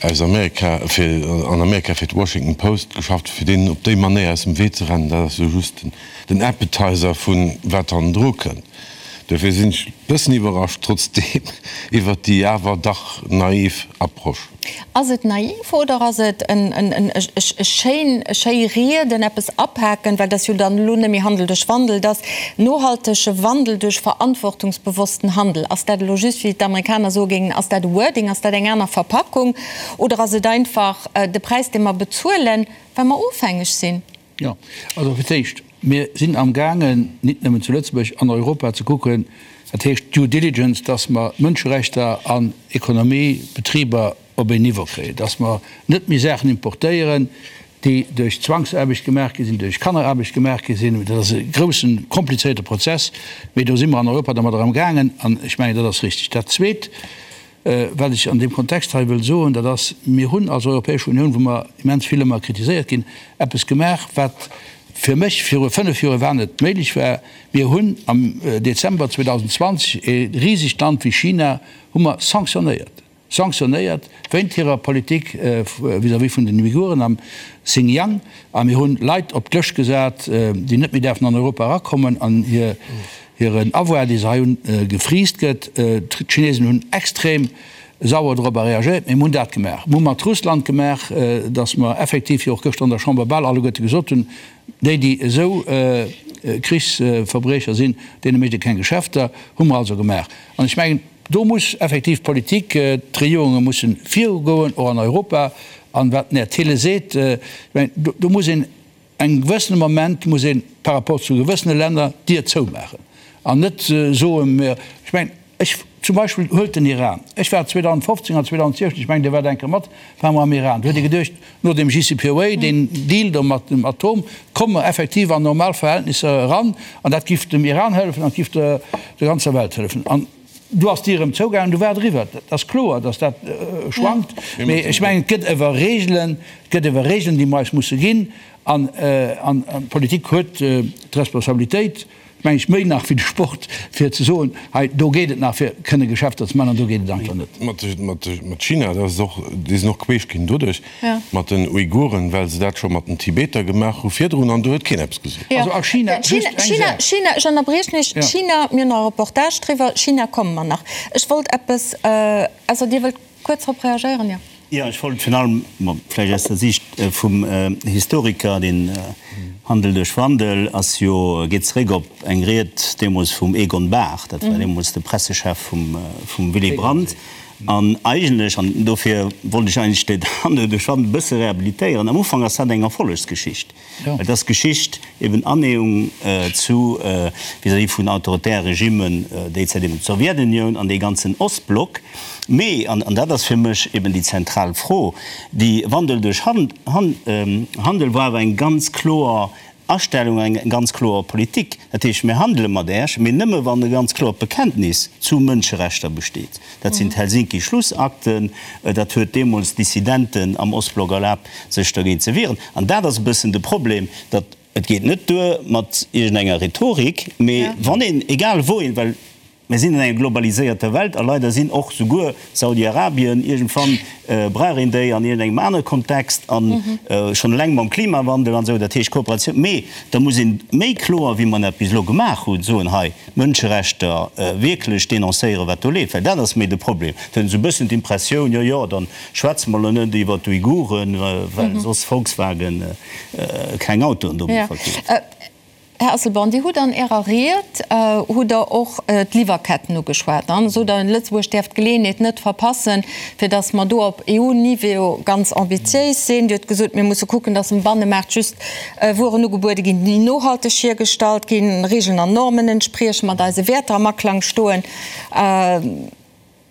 E: aus Amerika fir an Amerika fir d'Washington Post geschafft huet, fir deen op déi Manéier aus dem Wee ze rennen, dat ass jo just den Appetizer vu wat hannendru kënnt. Dofir sinn ech e bëssen iwwerrascht trotzdeem iwwert déi awer dach naiv Approche.
A: Ass et naiv oder ass et e schéin, e schéi Rieden, eppes apaken, well et ass jo dann elo net méi Handel duerch Wandel, et ass nohaltege Wandel duerch verantwortungsbewossten Handel. Ass dat elo just, wéi d'Amerikaner soe géingen, ass dat e Wording, ass dat eng aner Verpackung oder ass et einfach de Präis, dee mer bezuelen, well mer ofhängeg sinn?
D: Jo, also fir d'éischt, mir sinn amgaangen, nit nëmmen zu Lëtzebuerg, an Europa ze kucken, dat heescht Due Diligence, dass mer Mënscherechter an Economie, Betriber op een Niveau kréien, dass mer net méi Saachen importéieren, déi duerch Zwangsaarbecht gemaach gi sinn, duerch Kanneraarbecht gemaach gi sinn. Dat ass e groussen, komplizéierte Prozess, mee do si mer an Europa dermadder amgaangen an ech mengen, dat ass richtig. Dat Zweet, Wat ech an deem Kontext hei wëll soen, dat ass, Mir hunn als Europäesch Unioun, wou mer immens vill ëmmer kritiséiert ginn, eppes gemaach, wat fir mech viru fënnf Joer iwwerhaapt net méiglech war. Mir hunn am Dezember 2020 e risegt Land wéi China hu mer sanctionnéiert, sanctionnéiert wéint hirer Politik vis-à-vis vun den Uiguren am Xinjiang. A mir hunn Leit op d'Lëscht gesat, déi net méi däerfen an Europa erakommen an hir Hiren Avoir, dee se hei hunn, gefriist gëtt. D'Chinesen hunn extrem sauer dorobber reagéiert, mee mir hunn dat gemaach. Mir hu mat Russland gemaach, datt mer effektiv, wéi och gëschter an der Chamber bal alleguerte gesot hunn, déi, déi esou Krichsverbriecher sinn, deene mécht ee keng Geschäfter. Hu mer also gemaach. An ech mengen, do muss effektiv d'Politik, d'Regierunge mussen virugoen, och an Europa. An wat den Här Thiele seet, ech mengen, do muss een Engem gewëssene Moment muss ee par rapport zu gewëssene Länner d'Dier zoumaachen an net soen, mir, ech mengen, ech zum Beispill, huelt den Iran, ech war 2015 an 2016, ech mengen, Dir waart eng Kéier mat, ware mer am Iran, do huet ee geduecht, no dem JCPOA, deen Deal do mat dem Atom, komme mer effektiv an normal Verhältnisser eran an dat giff dem Iran hëllefen an et giff der ganzer Welt hëllefen. An do ass d'Dier erëm zougaangen, du war et eriwwer. Et ass kloer, datt dat schwankt, mee ech mengen, et gëtt ewer Regelen, et gëtt ewer Regelen, déi mer eis musse ginn. An d'Politik huet d'Responsabilitéit. Meng ech, méi nach wéi de Sport, fir ze soen, hei do geet et nach fir kënne Geschäfter ze maachen an do geet et einfach net.
E: Mat China, dat ass och, déi sinn och queesch ginn doduerch, mat den Uiguren, well se dat scho mat den Tibeter gemaach hu virdrun an do huet keen eppes gesot.
D: Also a China, just eng
A: Saach. China, ech ënnerbriechen Iech, China, mir hunn nach e Reportage driwwer, China komme mer nach. Ech wollt eppes, ausser Dir wëllt kuerz drop reagéieren, jo?
C: Jo, ech wollt virun allem, bon, vläicht aus der Siicht vum Historiker, den Handel duerch Wandel ass jo, geet zeréck op eng Ried deemools vum Egon Bahr, dat war deemools de Pressechef vum Willy Brandt, an eigentlech, an dofir wollt ech eigentlech den Handel duerch Wandel e bësse rehabilitéieren, am Ufank ass dat eng Erfollegsgeschicht. Et ass Geschicht, eben Annäherung zu, vis-à-vis vun autoritäre Regimmen, déi Zäit eben d'Sowjetunioun an dee ganzen Ostblock. Mee, an dat ass fir mech eben déi zentral Fro, déi Wandel duerch Handel war awer eng ganz kloer Astellung, eng ganz kloer Politik. Dat heescht, mir handele mat Äech, mee nëmme wann e ganz kloert Bekenntnis zu Mënscherechter besteet. Dat sinn d'Helsinki-Schlussakten. Dat huet deemools Dissidenten am Ostblock erlaabt, sech dergéint ze wieren. An dat ass e bëssen de Problem, datt et geet net duer mat iergendenger Rhetorik, mee wann een, egal wou een, well mir sinn an enger globaliséierter Welt a leider sinn och souguer Saudi-Arabien, iergendwann brauch een déi an iergendengem anere Kontext a schonn eleng mam Klimawandel an esou, dat heescht Kooperatioun, mee da muss een méi kloer, wéi mer dat bis elo gemaach hunn, soen, hei, Mënscherechter wierklech denoncéieren, wat do leeft, well dat ass méi de Problem. Et huet een esou e bëssen d'Impressioun, jo, jo, da schwätze mer elo net iwwer d'Uiguren, well soss Volkswagen keng Autoen do méi verkeeft.
A: Här Asselborn, Dir hutt an Ärer Ried hutt Der och d'Liwwerketten ugeschwat an sot der, Lëtzebuerg däerf d'Geleeënheet net verpassen, fir datt mer do op EU-Niveau ganz ambitiéis sinn. Dir hutt gesot, mir musse kucken, datt um Bannemaart just Wueren ugebuede ginn, déi nohalteg hiergestallt ginn, Regeln an Normen entspriechen, mat eise Wäerter am Aklang stoen.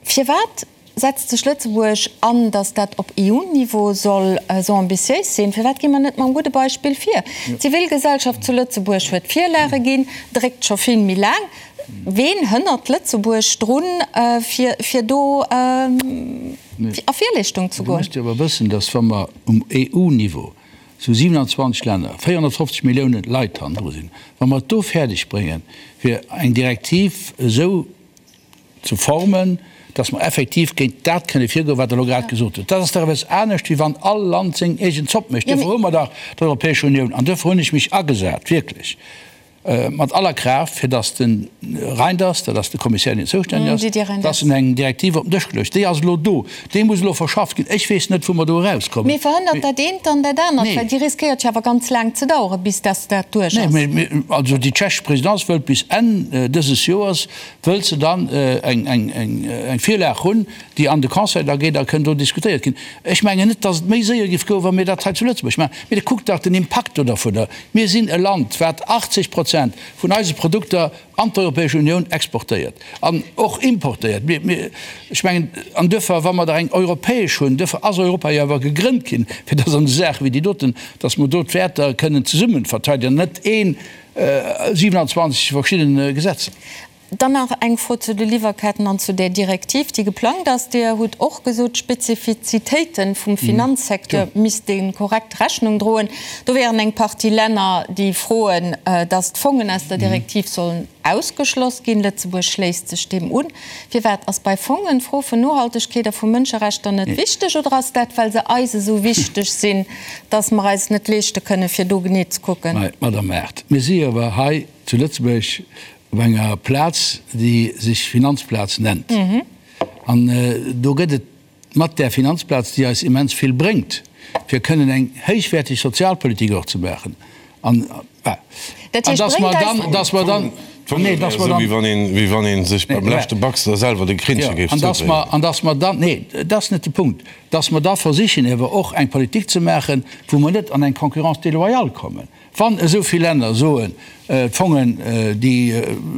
A: Firwat setzt sech Lëtzebuerg an, datt dat op EU-Niveau soll esou ambitiéis sinn? Firwat gi mer net mam gudde Beispill vir? D'Zivilgesellschaft zu Lëtzebuerg huet Virlage ginn, dréckt scho vill méi laang. Ween hënnert Lëtzebuerg drun, fir do a Virleeschtung ze
D: goen? Dir musst jo awer wëssen, datt wa mer um EU-Niveau zu 27 Länner, 450 Milliounen Leit hannendru sinn, wa mer et do fäerdeg bréngen, fir eng Direktiv esou ze formen, dass mer effektiv géint dat kënne virgoen, wat Der elo grad gesot hutt, dat ass dach eppes anescht, wéi wann all Land seng eegen Zopp mécht. Duerfir hu mer dach d'Europäesch Unioun an duerfir hunn ech mech agesat, wierklech mat aller Kraaft, fir dass de Reynders, dat ass de Kommissär, deen zoustänneg ass, dass en eng Direktiv op den Dësch geluecht. Déi ass elo do, déi muss elo verschafft ginn. Ech weess net, wou mer do erauskommen.
A: Mee verhënnert dat eent dann dat anert? Well déi riskéiert jo awer ganz laang ze daueren, bis dass dat duerch ass.
D: Nee, mee also déi tschechesch Présidence wëllt bis Enn dëses Joers wëllt se dann eng Virlag hunn, déi an de Conseil da geet a kënn do diskutéiert ginn. Ech mengen net, datt et méi séier géif goen, wa mir dat hei zu Lëtzebuerg maachen. Mee kuckt dach den Impakt do dervunner. Mir sinn e Land, wat 80 Prozent vun eise Produkter an d'Europäesch Unioun exportéiert an och importéiert. Mir, ech mengen, an duerfir, wa mer der eng europäesch hunn, duerfir ass Europa jo awer gegrënnt ginn, fir datt an esou Saache wéi déi doten, datt mer do d'Wäerter kënnen zesumme verteidegen an net een 27 verschidden Gesetzer.
A: Dann nach eng Fro zu de Liwwerketten an zu där Direktiv, déi geplangt ass. Dir hutt och gesot, d'Spezifizitéite vum Finanzsecteur misste korrekt Rechnung droen. Do wären eng Partie Länner, déi froen, datt d'Fongen aus der Direktiv sollen ausgeschloss ginn. Lëtzebuerg schléisst sech deem un. Firwat? Ass bei Fongen d'Fro vun Nohaltegkeet a vu Mënscherechter net wichteg oder ass dat, well se eis esou wichteg sinn, dass mer eis et net leeschte kënnen, fir do genee ze kucken?
D: Mä, Madame Err, mir si jo awer hei zu Lëtzebuerg op enger Plaz, déi sech Finanzplaz nennt. An do gëtt et mat där Finanzplaz, déi eis immens vill bréngt, fir kënnen eng héichwäerteg Sozialpolitik och ze maachen, an dass mer dann, dass mer dann,
E: nee, dass mer dann, wéi wann ee sech beim leschte Baxter selwer de Krinnche géif
D: zoudréinen. An dass mer dann, nee, dat ass net de Punkt, dass mer da versichen ewer och eng Politik ze maachen, wou mer net an eng Concurrence déloyale kommen. Wann esou vill Länner soen, d'Fongen, déi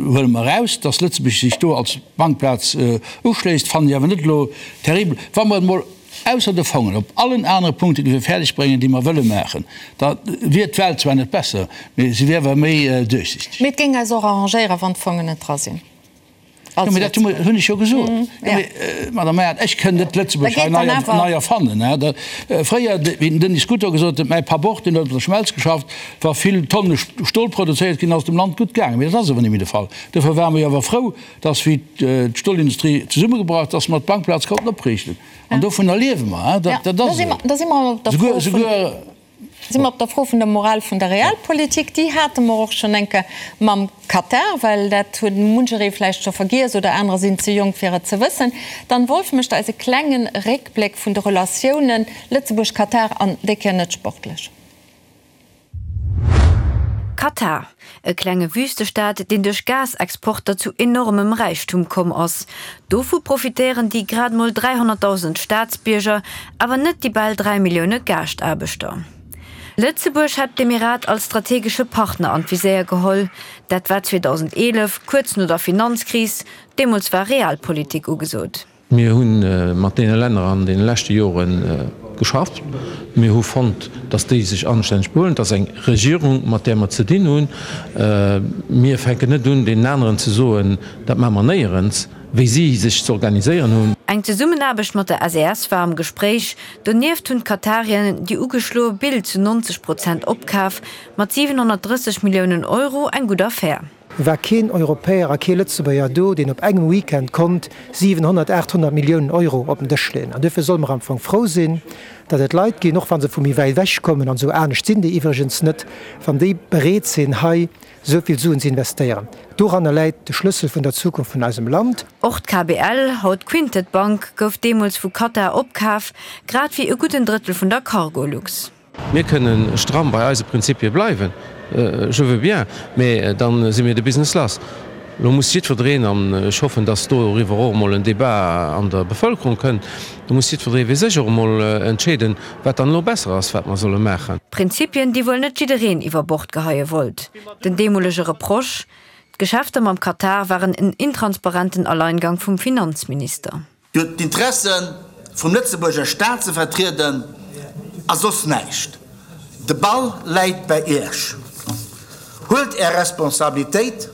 D: huele mer eraus, dass Lëtzebuerg sech do als Bankplaz uschléisst, fannen ech awer net elo terribel. Wa mer et emol ausser de Fongen op allen anere Punkte géife fäerdeg bréngen, déi mer wëlle maachen, da wier d'Welt zwar net besser, mee se wier awer méi duerchsichteg.
A: Mee et géing eis och arrangéieren, wann d'Fongen net dra sinn.
D: Jo, mee dat hunn ech jo gesot. Jo, mee, Madame Meyert, ech kënn net Lëtzebuerg hei nei erfannen. Fréier, wéi den Denis Scuto gesot huet, mäi Papp och, deen huet op der Schmelz geschafft, wa vill Tonne Stol produzéiert ginn, ass et dem Land gutt gaangen. Mee dat ass awer net méi de Fall. Dofir ware mer jo awer frou, dass, wéi d'Stolindustrie zesummegebrach ass, dass mer d'Bankplaz konnten opriichten. An dovunner liewe mer. Dat ass esou. Souguer.
A: Si mer op der Fro vun der Moral vun der Realpolitik. Déi hate mer och schonn eng Kéier mam Katar, well dat huet muncheree vläicht scho vergiess oder anerer sinn ze jonk fir et ze wëssen. D'Anne Wolff mécht eis e klenge Réckbléck vun de Relatiounen Lëtzebuerg-Katar an déi Kéier net sportlech.
G: Katar, e klenge Wüstestaat, deen duerch Gasexporter zu enormem Räichtum komm ass. Dovu profitéieren déi grad mol 300.000 Staatsbierger, awer net déi bal 3 Millioune Gaaschtaarbechter. Lëtzebuerg hat d'Emirat als strategesche Partner an d'Viséier geholl. Dat war 2011, kuerz no der Finanzkris. Deemools war Realpolitik ugesot.
H: Mir hu mat deene Länner an deene leschte Jore geschafft. Mir hu fonnt, datt déi sech anstänneg behuelen. Et ass eng Regierung, mat där mer ze dinn hunn. Mir fänken net un, deenen aneren ze soen, dat maache mer néierens, wéi si sech ze organiséieren hunn.
G: Eng Zesummenaarbecht mat der SES war am Gespréich. Donieft hunn d'Katarien déi ugeschloe Bild zu 90 Prozent opkaf, mat 730 Milliounen Euro eng gutt Affär.
I: War keen Europäer a kee Lëtzebuerger do, deen op engem Weekend konnt 700, 800 Milliounen Euro op den Dësch leeën. An duerfir solle mer am Fong frou sinn, datt et Leit ginn, och wa se vu méi wäit ewech kommen, an esou anescht sinn déi iwwregens net, wann déi bereet sinn, hei esou vill Suen ze investéieren. Doranner läit de Schlëssel vun der Zukunft vun eisem Land.
G: Och d'KBL, haut Quintet Bank, gouf deemools vu Qatar opkaf, grad wéi e gudden Drëttel vun der Cargolux.
H: Mir kënnen stramm bei eise Prinzipie bleiwen, je veux bien, mä da si mir de Business lass. Elo muss jiddwereen, an ech hoffen, datt doriwwer och emol en Débat an der Bevëlkerung kënnt, do muss jiddweree fir sech och emol entscheeden, wat dann elo besser ass, wat mer solle maachen.
G: Prinzipien, déi wuel net jiddereen iwwer Bord geheie wollt. Den deemolege Reproche, D'Geschäfter mam Katar waren en intransparenten Alleingang vum Finanzminister.
J: Dir hutt d'Interesse vum Lëtzebuerger Staat ze vertrieden a soss näischt. De Ball läit bäi Iech. Huelt Är Responsabilitéit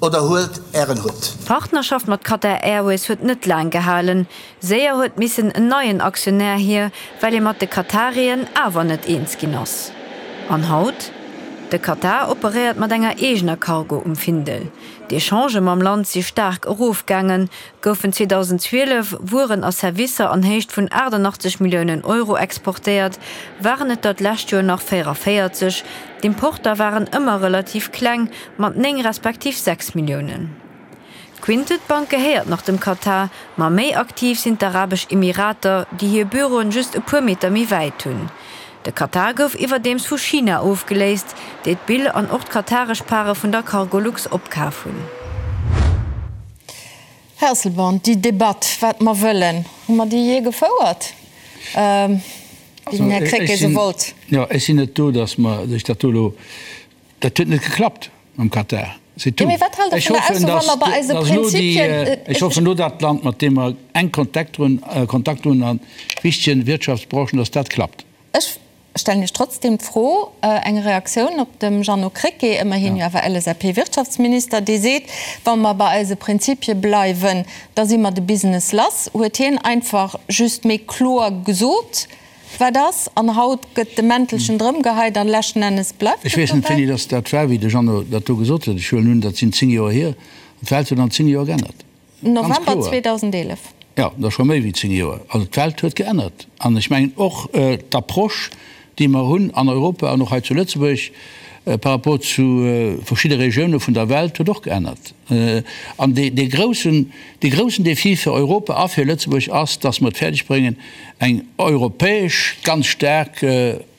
J: oder huelt Ären Hutt.
G: D'Partnerschaft mat Qatar Airways huet net laang gehalen. Séier huet missen en neien Aktionär hier, well ee mat de Katarien awer net eens ginn ass. An haut? De Katar operéiert mat enger eegener Cargo um Findel. D'Echangë mam Land si staark erofgaangen, goufen 2012 Wueren a Servicer an Héicht vun 88 Milliounen Euro exportéiert, waren et der d'lescht Joer nach 44. D'Importer waren ëmmer relativ kleng, mat 9 respektiv 6 Milliounen. D'Quintet Bank gehéiert nach dem Katar, ma méi aktiv sinn d'Arabesch Emirater, déi hir Büroen just e puer Meter méi wäit hunn. De Katar gouf iwwerdeems vu China ofgeléist, déi d'Bill an och d'kataresch Pare vun der Cargolux opkaf hunn.
A: Här Asselborn, déi Debatt, wat mer wëllen, hu mer déi jee gefouert, wéi den Här Krecké se wollt?
D: Jo, ech sinn net do, datt mer sech dat do elo, dat huet net geklappt mam Katar, c'est tout.
A: Mee wat haalt Der vun der Ausso, wa mer bei eise Prinzipien.
D: Ech hoffen elo, dat Land, mat deem mer enk Kontakt hunn, Kontakt hunn a wichtegen Wirtschaftsbranchen, datt dat klappt.
A: Ech stellen Iech trotzdem d'Fro, eng Reaktioun op dem Jeannot Krecké, ëmmerhin jo awer LSAP-Wirtschaftsminister, dee seet, wa mer bei eise Prinzipie bleiwen, da si mer de Business lass. Huet hien einfach just méi kloer gesot, wat ass, an haut gëtt de Mäntelchen drëmgeheit an leschten Ennes bleift
D: et dobäi? Ech weess net, wéini dass dat war, wéi de Jeannot dat do gesot huet. Ech huelen un, dat sinn 10 Joer hier. An d'Welt huet an 10 Joer geännert.
A: November 2011.
D: Jo, dat ass scho méi wéi 10 Joer. Also d'Welt huet geännert. An ech mengen och d'Approche, déi mer hunn an Europa an och hei zu Lëtzebuerg par rapport zu verschidde Regioune vun der Welt, huet och geännert. An dee groussen, dee groussen Défi fir Europa a fir Lëtzebuerg ass, dass mer et fäerdeg bréngen, eng europäesch ganz staark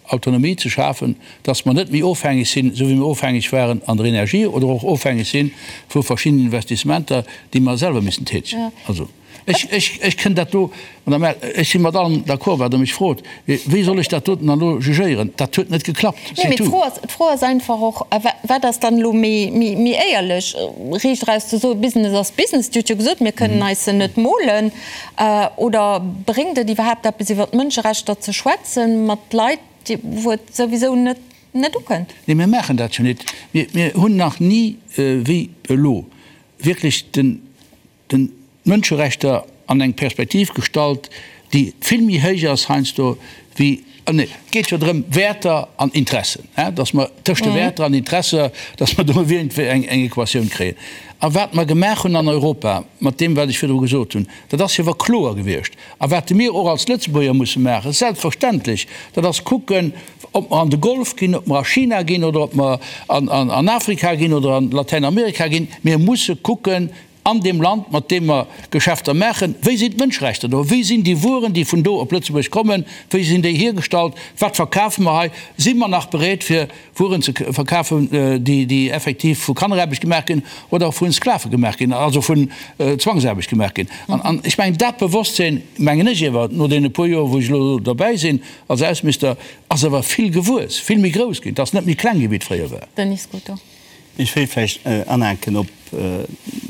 D: Autonomie ze schafen, dass mer net méi ofhängeg sinn, esou wéi mer ofhängeg waren an der Energie oder och ofhängeg si vu verschiddenen Investissementer, déi mer selwer missen tätegen. Also, ech, ech, ech kënn dat do, Madame Err, ech si mat allem d'accord, wat Der mech frot, mee wéi soll ech dat doten dann elo jugéieren? Dat huet net geklappt,
A: c'est tout. Nee, mee d'Fro ass einfach och, Wat ass dann elo méi, méi, méi éierlech, riicht eraus ze soen, Business ass Business, Dir hutt jo gesot, mir kënnen eis se net molen, Oder bréngt et iwwerhaapt eppes iwwer d'Mënscherechter ze schwätzen mat Leit, wou et souwisou net net ukënnt?
D: Nee, mir maachen dat jo net. Mir hunn nach ni wéi elo wierklech den. Den d'Mënscherechter an eng Perspektiv gestallt, déi vill méi héich ass heiansdo wéi, nee, et geet jo drëm, Wäerter an Interessen, dass mer tëscht de Wäerter an Interesser, dass mer do iergendwéi eng Equatioun kréien. A wat mer gemaach hunn an Europa mat deem, wat ech virdru gesot hunn, dat ass jo awer kloer gewiescht. A wat mir och als Lëtzebuerger musse maachen, selbstverständlech, dat ass kucken, ob mer an de Golf ginn, ob mer a China ginn oder ob mer an Afrika ginn oder an Latäinamerika ginn, mir musse kucken, an deem Land, mat deem mer Geschäfter maachen, wéi sinn d'Mënscherechter do, wéi sinn déi Wueren, déi vun do op Lëtzebuerg kommen, wéi sinn déi hiergestallt, wat verkafe mer hei, si mer nach bereet fir Wueren ze verkafen, déi effektiv vu Kanneraarbecht gemaach ginn oder vu Sklave gemaach ginn, also vun Zwangsaarbecht gemaach ginn. An ech mengen, dat Bewosstsinn, mengen ech iewer, no deene puer Joer, wou ech elo derbäi sinn als Ausseminister, ass awer vill gewuess, vill méi grouss ginn, et ass net méi kleng gi wéi et fréier war.
A: Denis Scuto.
C: Ech wéilt vläicht anhaken op,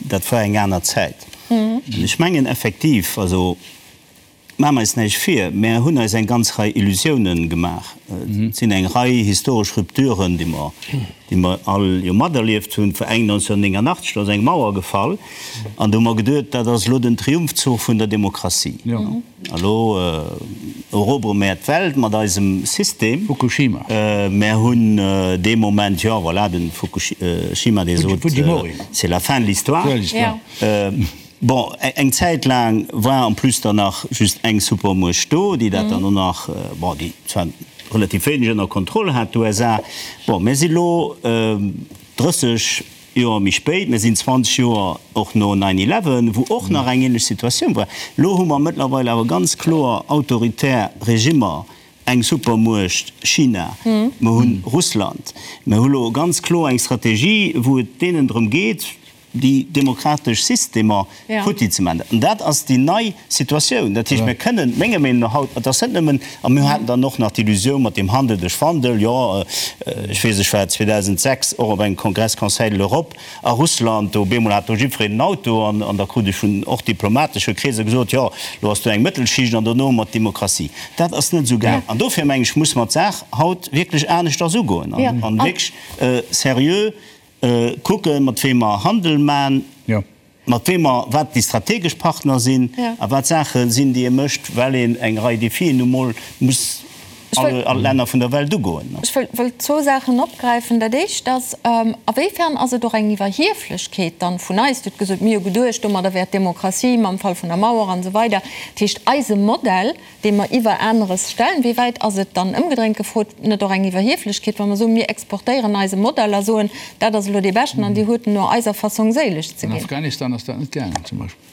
C: dat war eng aner Zäit. An ech mengen effektiv, also maache mer eis näischt vir, mär hunn eis eng ganz Rei Illusiounen gemaach. Et sinn eng Rei historesch Rupturen, déi mer, déi mer all jo materlieft hunn. Vor eng 1989, do ass eng Mauer gefall an do hu mer geduet, dat ass elo den Triumphzuch vun der Demokratie. Elo erobere mär d'Welt mat eisem System.
D: Fukushima.
C: Mär hunn dee Moment, jo voilà, de Fukushima, dee sot, c'est la fin de l'histoire. Bon, eng Zäit laang war en plus dann nach just eng Supermuecht do, déi dat dann och nach, bon, déi zwar relativ wéineg ënner Kontroll hat, d'USA. Bon, mär si lo 30. Joer méi spéit, mir sinn 20 Joer och no Nine Eleven, wou och nach eng ähnlech Situatioun war. Elo hu mer mëttlerweil awer ganz kloer autoritär Regimmer, eng Supermuecht China, mer hu Russland, mer hu lo ganz kloer eng Strategie, wou et deenen drëm geet, déi demokratesch Systemer futti ze maachen. An dat ass déi nei Situatioun. Dat heescht, mir kënnen, menger Meenung no haut, et ass net nëmmen, a mir haten dann och nach d'Illusioun mat deem Handel duerch Wandel, jo, ech weess, ech war 2006 och op engem Kongress Conseil de l'Europe a Russland, do op eemol hat do jiddwereen en Auto an an da krut ech vun och diplomatesche Kreeser gesot, jo, lo ass do eng Mëttelschicht an dono hu mer d'Demokratie. Dat ass net esou gaang. An dofir, meng ech, muss mer d'Saach haut wierklech aneschters ugoen an wierklech seriö kucken, mat weem mer Handel man. Mat weem mer, wat déi strategesch Partner sinn a wat Saache sinn, déi ee mécht, well een eng Rei Defien nu mol muss all d'Länner vun der Welt ugoen.
A: Ech wëll zwou Saachen opgräifen. Dat Éischt ass, Awéifern ass et och eng Iwwerhieflechkeet dann vun eis? Dir hutt gesot, mir hu geduecht, domadder wär d'Demokratie mam Fall vun der Mauer an esou weider. Dat heescht, eise Modell, dee mer iwwer aneres stellen, wéi wäit ass et dann, ëmgedréint gefrot, net och eng Iwwerhieflechkeet, wa mer soen, mir exportéieren eise Modell a soen, dat ass elo dee beschten an Dir huet en no eiser Fassong séileg ze
D: ginn? An Afghanistan ass dat net gaangen zum Beispill.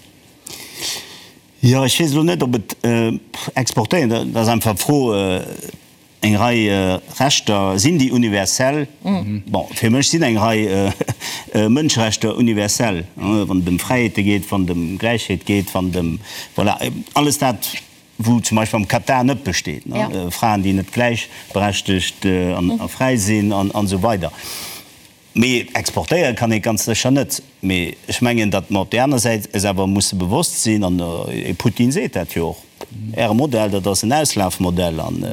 C: Jo, ech weess elo net, ob et exportéieren, dat ass einfach d'Fro, Eng Rei Rechter, sinn déi universell? Bon, fir mech sinn eng Rei Mënscherechter universell, wann et ëm Fräiheete geet, wann et ëm Gläichheet geet, wann et ëm, voilà, alles dat, wou zum Beispill am Katar net besteet, Fraen, déi net gläichberechtegt a fräi sinn an esou weider. Mee exportéiere kann ee ganz sécher net. Mee ech mengen, datt mer op där aner Säit eis awer musse bewosst sinn, an de Putin seet dat jo och, Äre Modell, dat ass en Auslafmodell an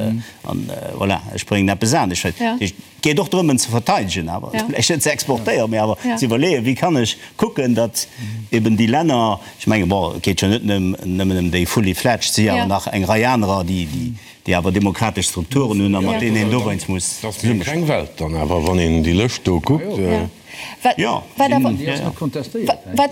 C: voilà, ech bréngen eppes anescht. Dat heescht, et geet och drëm, en ze verteidegen awer, vläicht net ze exportéieren, mee awer ze iwwerleeën, wéi kann ech kucken, datt eben déi Länner, ech menge bon, et geet jo net nëmmen ëm déi fully fledged, et si awer nach eng Rei anerer, déi déi awer demokratesch Strukturen hunn a mat deenen een dowéinst muss
E: Dat ass méi eng kleng Welt dann awer, wann een déi Lëscht do kuckt.
A: Wat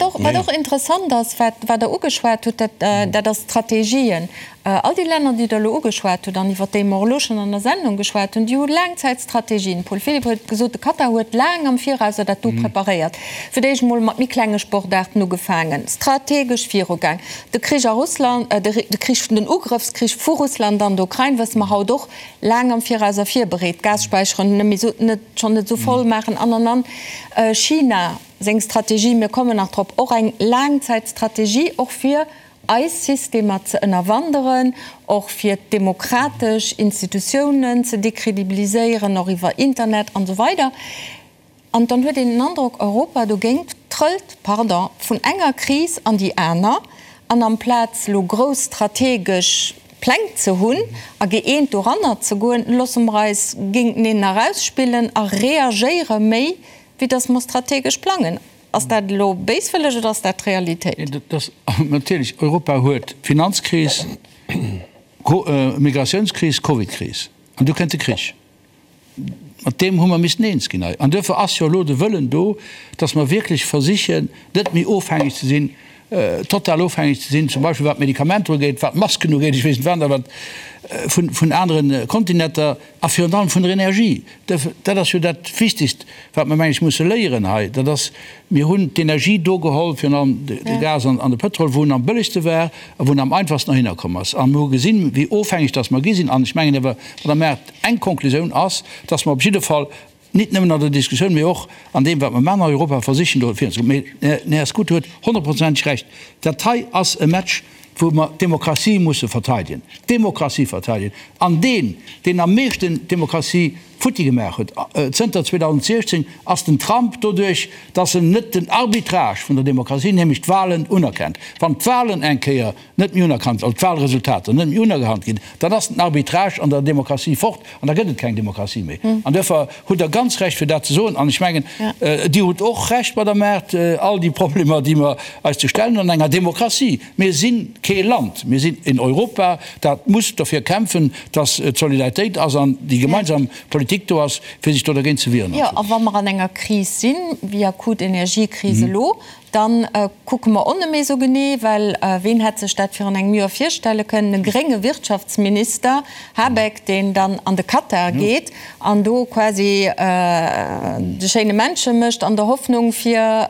A: och interessant ass, wat Der ugeschwat hutt, dat ass d'Strategien. All déi Länner, déi Der elo ugeschwat hutt an iwwert déi mer och elo schonn an der Sendung geschwat hunn, déi hu Laangzäitstrategien. Paul Philipp huet gesot, de Katar huet laang am Virauser dat do preparéiert. Fir d'éischt emol mat méi klenge Sportaarten ugefaangen, strategesch virugaang. De Krich a Russland, de Krich, den Ugrëffskrich vu Russland an der Ukrain, wësse mer haut och, laang am Virauser virbereet, d'Gasspäicheren net méi esou, net, schonn net esou voll maachen an, an, an. China seng Strategie, mir kommen nach drop, och eng Laangzäitstrategie, och fir eis Systemer ze ënnerwanderen, och fir d'demokratesch Institutiounen ze décredibiliséieren, och iwwer Internet an esou weider. An dann huet een den Androck, Europa dogéint trëllt, pardon, vun enger Kris an déi aner. An amplaz elo grouss strategesch Pläng ze hunn a gëeent doranner ze goen, loosse mer eis géinteneen erausspillen a reagéiere méi, wéi datt mer strategesch plangen. Ass dat elo béiswëlleg oder ass dat d'Realitéit?
D: Natierlech, Europa huet Finanzkris, Migratiounskris, Covidkris an du kënnt de Krich. Mat deem hu mer missen eens ginn hei. An duerfir ass jo elo de Wëllen do, dass mer wierklech versichen, net méi ofhängeg ze sinn, total ofhängeg ze sinn, zum Beispill wat d'Medikamenter ugeet, wat d'Masken ugeet, ech weess net wat, awer vun anere Kontinenter a virun allem vun der Energie. Dat ass jo dat Wichtigst, wat mer, meng ech, musse léieren hei, dat ass, mir hunn d'Energie do geholl, virun allem de Gas an de Pëtrol, wou en am bëllegste war a wou en am einfachsten erhinner komm ass. A mir hu gesinn, wéi ofhängeg dass mer gi sinn. An ech mengen awer, Madame Err, eng Konklusioun ass, dass mer op jidde Fall nit nëmmen an der Diskussioun, mee och an deem, wat mer maachen an Europa, versichen do virunzekommen. Mee den Här Scuto huet honnertprozenteg Recht, Dat hei ass e Match, wou mer d'Demokratie musse verteidegen, d'Demokratie verteidegen. An deen, deen am meeschten d'Demokratie futti gemaach huet zënter 2016, ass den Trump, doduerch dass en net den Arbitrage vun der Demokratie, nämlech d'Wahlen, unerkennt. Wann d'Wahlen eng Kéier net méi unerkannt, also d'Wahlresultater net méi unerkannt ginn, dann ass den Arbitrage an der Demokratie fort an da gëtt et keng Demokratie méi. An duerfir hutt Der ganz Recht, fir dat ze soen. An ech mengen, Dir hutt och Recht, Madame Err, all déi Problemer, déi mer eis ze stellen hunn an enger Demokratie. Mir si kee Land, mir sinn en Europa, dat muss dofir kämpfen, dass et Solidaritéit ass an déi gemeinsam Politik do ass, fir sech do dergéint ze wieren.
A: Jo, a wa mer an enger Kris sinn, wéi akut Energiekris elo, Dann kucke mer och net méi esou genee, well ween hätt sech dat virun engem Joer virstelle kënnen, e grénge Wirtschaftsminister, Habeck, deen dann an de Katar geet an do quasi de schéine Männche mécht an der Hoffnung fir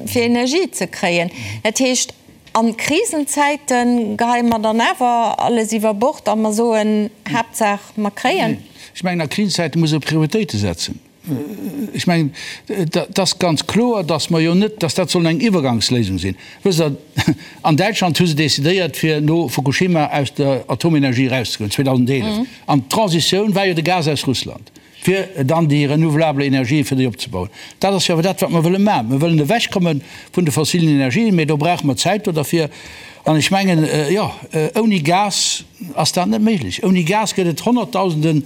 A: fir Energie ze kréien. Dat heescht, a Krisenzäite geheie mer dann awer alles iwwer Bord a mer soen, Haaptsaach mer kréien.
D: Ech mengen, a Krisenzäite muss ee Prioritéite setzen. Ech mengen, et ass ganz kloer, datt mer jo net, datt dat soll eng Iwwergangsléisung sinn. Wësst Der, an Däitschland hu se decidéiert, fir no Fukushima aus der Atomenergie erauszegoen, 2011. An d'Transitioun war jo de Gas aus Russland, fir dann déi renouvelable Energien, fir déi opzebauen. Dat ass jo awer dat, wat mer wëlle maachen. Mer wëllen ewechkomme vun de fossilen Energien, mä do brauche mer Zäit do derfir. An ech mengen, jo, ouni Gas ass dat net méiglech. Ouni Gas gëtt et Honnertdausenden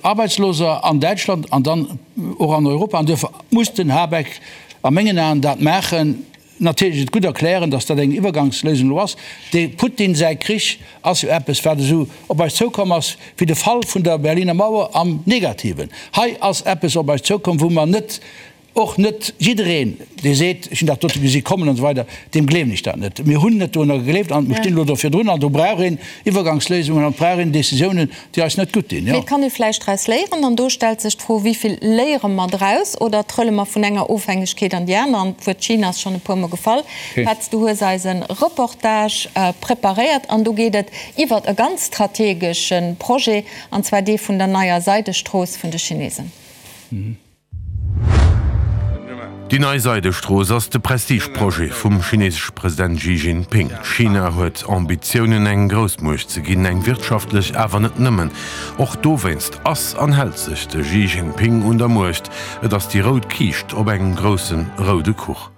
D: Arbeitsloser an Däitschland an dann och an Europa. An duerfir muss den Habeck a mengen Aen dat maachen. Natierlech et gutt erklären, datt dat eng Iwwergangsléisung elo ass. De Putin säi Krich ass jo eppes, wat esou op eis zoukomm ass wéi de Fall vun der Berliner Mauer am Negativen. Hei ass eppes op eis zoukomm, wou mer net Och net jiddereen, dee seet, ech hunn dat dote gesi kommen an esou weider, deem gleewen ech dat net. Mir hunn net dorunner gegleeft an mir stinn elo do virdrun an do brauch een Iwwergangsléisungen an et brauch een Décisiounen, déi eis net gutt dinn.
A: Mee et kann ee vläicht draus léieren an do stellt sech d'Fro, Wéi vill léiere mer draus oder trëlle mer vun enger Ofhängegkeet an déi aner? An d'Wuert China ass schonn e puermol gefall. Petz, du hues eis e Reportage preparéiert an do geet et iwwert e ganz strategesche Projet, an zwar dee vun der neier Seidestrooss vun de Chinesen.
E: Déi nei Seidestrooss ass de Prestigeprojet vum chinesesche President Xi Jinping. China huet Ambitiounen eng Groussmuecht ze ginn, eng wirtschaftlech, awer net nëmmen. Och dowéinst ass an hält sech de Xi Jinping un der Muecht. Et ass déi rout Kiischt op engem grousse roude Kuch.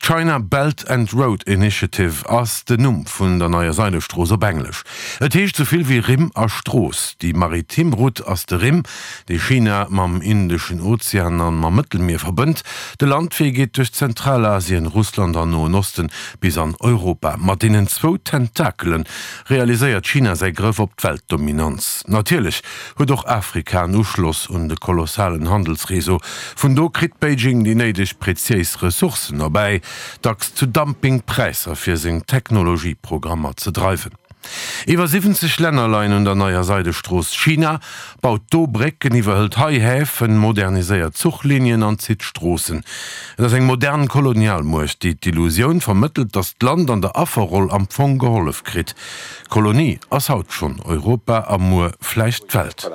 E: D'China Belt and Road Initiative ass den Numm vun der neier Seidestrooss op Englesch. Et heescht sou vill wéi Rimm a Strooss. Déi maritim Route ass de Rimm, dee China mam Indeschen Ozean an mam Mëttelmier verbënnt. De Landwee geet duerch Zentralasien, Russland an Noen Osten bis an Europa. Mat deenen zwou Tentakele realiséiert China säi Grëff op d'Weltdominanz. Natierlech huet och Afrika en Uschloss un de kolossalen Handelsreseau. Vun do kritt Beijing déi néideg preziéis Ressourcen erbäi, dacks zu Dumpingpräisser fir seng Technologieprogrammer ze dreiwen. Iwwer 70 Länner leien un der neier Seidestrooss. China baut do Brécken, iwwerhëlt hei Häfen, moderniséiert Zuchlinien an zitt Stroossen. Et ass eng modern Kolonialmuecht, déi d'Illusioun vermëttelt, datt d'Land an der Afferroll am Fong gehollef kritt. D'Kolonie ass haut schonn Europa a muer vläicht d'Welt.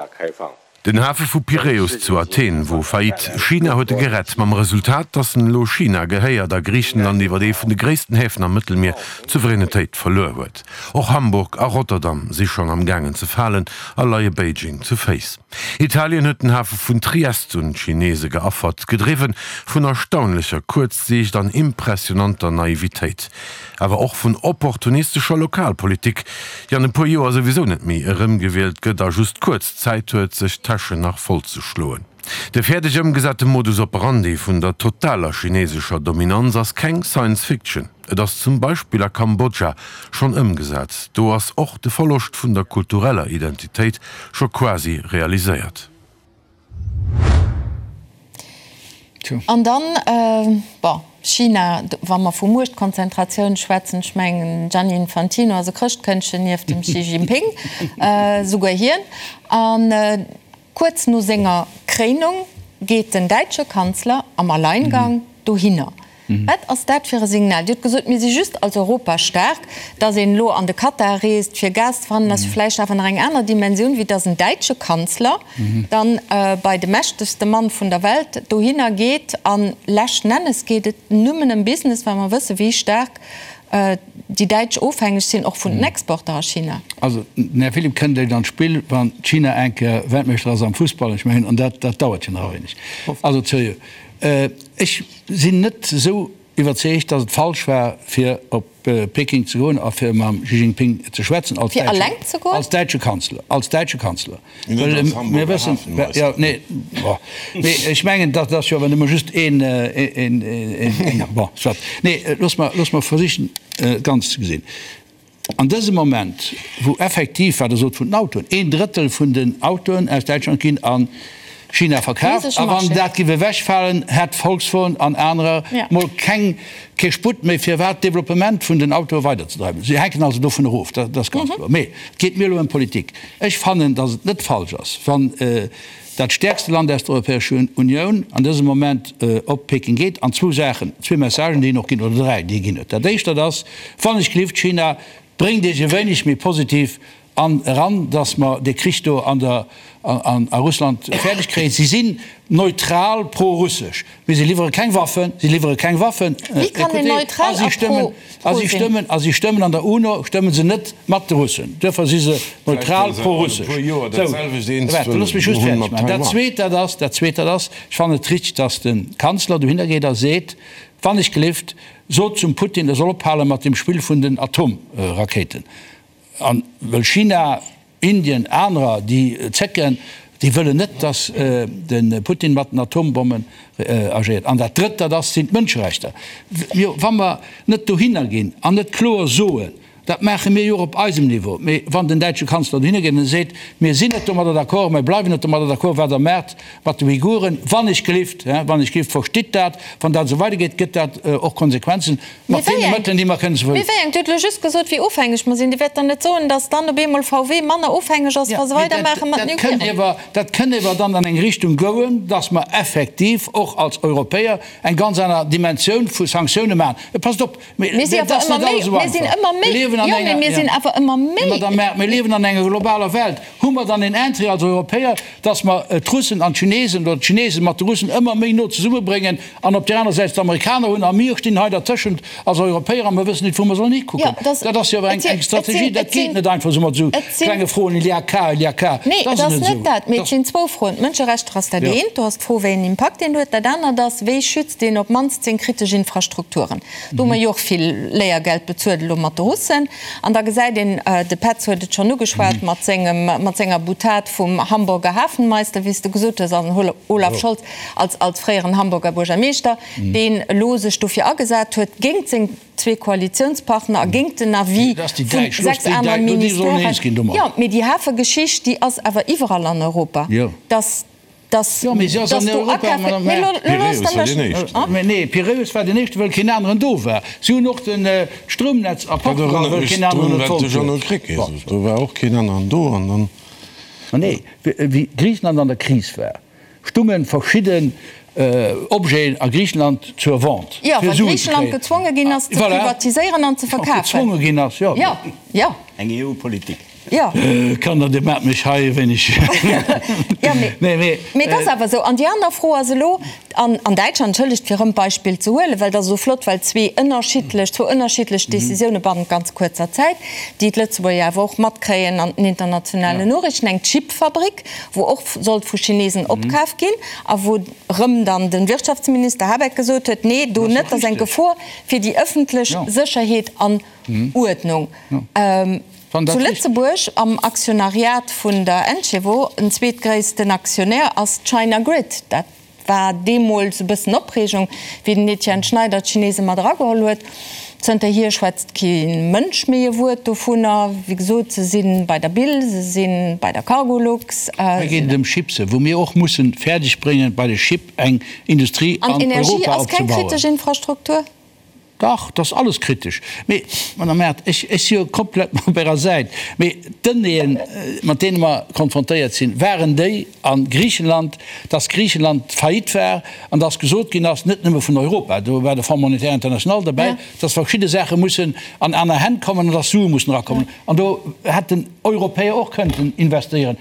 E: Den Hafe vu Piräus zu Athen wor faillite. China huet e gerett, mam Resultat, datt en elo China gehéiert a Griichenland iwwer ee vun de gréissten Häfen am Mëttelmier d'Souveränetéit verluer huet. Och Hamburg a Rotterdam si schonn am gaangen ze falen a leie Beijing zu Féiss. Italien huet den Hafe vun Triest un d'Chinese geaffert, gedriwwe vun erstaunlecher Kuerzsiicht an impressionanter Naivitéit. awer och vun opportunistescher Lokalpolitik, déi an e puer Joer souwisou net méi erëmgewielt gëtt a just kuerz Zäit huet, sech d'Täschen nach voll ze schloen. De fäerdeg ëmgesate Modus operandi vun der totaler chinesescher Dominanz ass keng Science Fiction. Et ass zum Beispill a Kambodscha schonn ëmgesat. Do ass och de Verloscht vun der kultureller Identitéit scho quasi realiséiert.
A: An dann, bon, China, wa mer vu Muechtkonzentratioun schwätzen, ech mengen, Gianni Infantino ass e Chrëschtkëndchen nieft dem Xi Jinping, souguer hien. An kuerz no senger Kréinung geet den däitsche Kanzler am Alleingang dohinner. Wat ass dat fir e Signal? Dir hutt gesot, mir si just als Europa staark. Datt een elo an de Katar reest, fir Gas ze fannen, ass jo vläicht awer nach eng aner Dimensioun, wéi datt en däitsche Kanzler dann bei de mächtegste Mann vun der Welt dohinner geet. An leschten Ennes geet et nëmmen ëm Business, well mer wësse wéi staark déi Däitsch ofhängeg sinn, och vun den Exporter a China.
D: Also den Här Philipp kënnt eréischt an d'Spill, wann China eng Kéier Weltmeeschter ass am Fussball. Ech mengen, an dat dauert jo nach e wéineg. Also seriö, ech sinn net esou iwwerzeegt, datt et falsch war, fir op Peking ze goen a fir mam Xi Jinping ze schwätzen als
A: Fir alleng ze goen?
D: Als däitsche Kanzler, als däitsche Kanzler. Well mir wëssen, jo, nee, bon, mee ech mengen, dat ass jo awer nëmme just een, een, een, bon, soit. Nee, looss mer, looss mer versichen, et ganz ze gesinn. An dësem Moment, wou effektiv, wat Der sot vun den Autoen, een Drëttel vun den Autoen aus Däitschland ginn a China verkaaft, a wann dat géif ewechfalen, hätt Volkswagen an anerer mol keng, kee Sputt méi, fir wat d'Developpement vun den Autoe weiderzedreiwen. Si hänken also dovun erof, dat ass ganz kloer. Mee et geet mir elo ëm Politik. Ech fannen, datt et net falsch ass, wann dat stäerkste Land aus der Europäescher Unioun an dësem Moment op Peking geet an zwou Saachen, zwee Messagen, déi en och ginn, oder dräi, déi e ginn huet. Dat éischt, dat ass, Wann ech gelift, China, bréngt Iech e wéineg méi positiv an eran, datt mer dee Krich do an der, an a Russland fäerdeg kréien. Si sinn neutral pro-russesch, mee si liwwere keng Waffen, si liwwere keng Waffen,
A: Wéi kann een
D: écoutez, a
A: neutral
D: si
A: a
D: stëmmen,
A: pro,
D: a
A: pro
D: si
A: sinn?
D: stëmmen, a si stëmmen an der UNO, stëmmen se net mat de Russen. Duerfir si se neutral pro-russesch. Sou, waart, looss mech just fäerdeg maachen. Dat Zweet, dat ass, dat Zweet, dat ass, ech fannen et richteg, datt de Kanzler dohinner geet a seet, Wann ech gelift, sot zum Putin, e soll ophale mat dem Spill vun den Atomrakéiten. A wëll China, Indien, anerer, déi zécken, déi wëllen net, datt de Putin mat den Atombommen agéiert. An dat Drëtt, dat ass, sinn d'Mënscherechter. Jo, wa mer net dohinner ginn an net kloer soen, dat maache mir jo och op eisem Niveau, mee wann den däitsche Kanzler dohinner geet an e seet, mir sinn net domadder d'accord, mir bleiwen net domadder d'accord, wat Der maacht mat de Uiguren, wann ech gelift, wann ech gelift, verstitt dat, wann dat esou weidergeet, gëtt dat och Konsequenzen.
A: Mee
D: Mat
A: wéi
D: deene
A: eng?
D: Mëttelen, déi mer kënnen ze
A: Mee wéi eng? Dir hutt elo just gesot, wéi ofhängeg mer sinn. Dir wäert dann net soen, datt dann op eemol VW manner ofhängeg ass,
D: Ja,
A: wa se
D: mee dat,
A: weidermaache mat
D: dat
A: den
D: kënnt
A: Uiguren.
D: ewer, dat kënnt ewer dann an eng Richtung goen, datt mer effektiv och als Europäer eng ganz aner Dimensioun vu Sanktioune maachen. Passt op,
A: Mir
D: mir,
A: si
D: dat
A: awer
D: ass
A: ëmmer
D: net
A: méi,
D: alles esou
A: mir sinn
D: einfach.
A: ëmmer
D: Mir
A: méi,
D: liewen an
A: jo, mee
D: enger,
A: mir
D: ja,
A: sinn awer ëmmer
D: mee
A: méi.
D: Madame Err, mir liewen an enger globaler Welt. Hu mer dann een Intérêt als Europäer, datt mer d'Russen an d'Chinesen oder d'Chinesen mat de Russen ëmmer méi no zesummebréngen an op där aner Säit d'Amerikaner hunn a mir stinn hei dertëschent als Europäer a mer wëssen net wou mer sollen hikucken? Dat ass jo awer eng Strategie, dat geet net einfach esou mat esou klenge Froen, il y a qu'à, il y a qu'à.
A: Nee, et ass net dat, mee et sinn zwou Froen. D'Mënscherechter ass dat eent, do ass d'Fro wéi en Impakt een huet. Dat anert ass, wéi schützt een op d'mannst seng kritesch Infrastrukturen? Do hu mer jo och vill Léiergeld bezuelt elo mat de Russen. An da gesäit een, de Petz huet et schonn ugeschwat mat sengem, mat senger Boutade vum Hamburger Hafenmeister, wéi s de gesot hues, also den Olaf Scholz als, als fréieren Hamburger Buergermeeschter, deen elo sech dofir agesat huet, géingt seng zwee Koalitiounspartner a géingt den Avis vu 6 anere Ministèren. Jo, mee déi Hafegeschicht, déi ass awer iwwerall an Europa, dass, dass,
D: Jo, mee si ass
A: dass
D: an
A: do
D: Europa,
A: Akafe,
D: Madame
A: mee
D: Err.
A: lo, lo loosst
E: Piräus
A: Der
E: war deen
A: mech,
E: éischten.
A: hein?
D: Mee nee, Piräus war deen éischten, wëll keen aneren do war. Si hunn och den Stroumnetz a
E: Dat
D: Portugal,
E: erënnert
D: wëll
E: mech
D: keen aneren
E: drun,
D: et
E: wat de
D: wollt
E: Jeannot
D: huet.
E: Krecké
D: Bon.
E: sot. Do war och keen aneren do an dann.
D: Ma nee, wéi Griichenland an der Kris war, stunge verschidden Objeten a Griichenland zur Vente,
A: Jo,
D: fir
A: well
D: Suen ze
A: Griichenland
D: kréien.
A: gezwonge ginn ass, ze
D: Voilà.
A: privatiséieren an ze verkafen.
D: Gezwonge ginn ass, jo.
A: Jo, jo.
C: Eng EU-Politik.
A: Jo.
D: Kanner, Dir maacht mech hei e wéineg.
A: Jo, mee,
D: Nee, mee.
A: mee et ass awer esou. An déi aner Fro ass elo, an, an Däitschland, entschëllegt, fir erëm d'Beispill ze huelen, well et ass esou flott, well zwee ënnerschiddlech, zwou ënnerschiddlech Décisioune bannent ganz kuerzer Zäit, déi d'Lëtzebuerger awer och matkréien an den internationalen Noriichten, eng Chipfabrik, wou och sollt vu Chinesen opkaf ginn a wou erëm dann de Wirtschaftsminister Habeck gesot huet, nee, do net, dat ass eng Gefor fir déi ëffentlech Sécherheet an Uerdnung. Zu Lëtzebuerg am Aktionariat vun der Encevo, en zweetgréissten Aktionär ass d'China Grid. Dat war deemools e bëssen Opreegung, wéi den Etienne Schneider d'Chinese mat erageholl huet. Zënterhier schwätzt kee Mënsch méi e Wuert dovunner. Wéi gesot, se si bei der Bill, se si bei der Cargolux.
D: Hei geet et ëm Chipse, wou mir och mussen fäerdeg bréngen, bei de Chip eng Industrie
A: An
D: an Europa
A: Energie ass keng
D: opzebauen.
A: kritesch Infrastruktur?
D: Dach, dat ass alles kritesch. Mee, Madame Mart, ech, ech si jo komplett op Ärer Säit. Mee d'Donnéeën, mat deene mer konfrontéiert sinn, waren déi a Griichenland, dass Griichenland faillite war an dass gesot ginn ass, net nëmme vun Europa, do war de Fonds monétaire international derbäi, dass verschidde Saache mussen an aner Hänn kommen an dass Sue mussen erakommen. An do hätten Europäer och kënnten investéieren.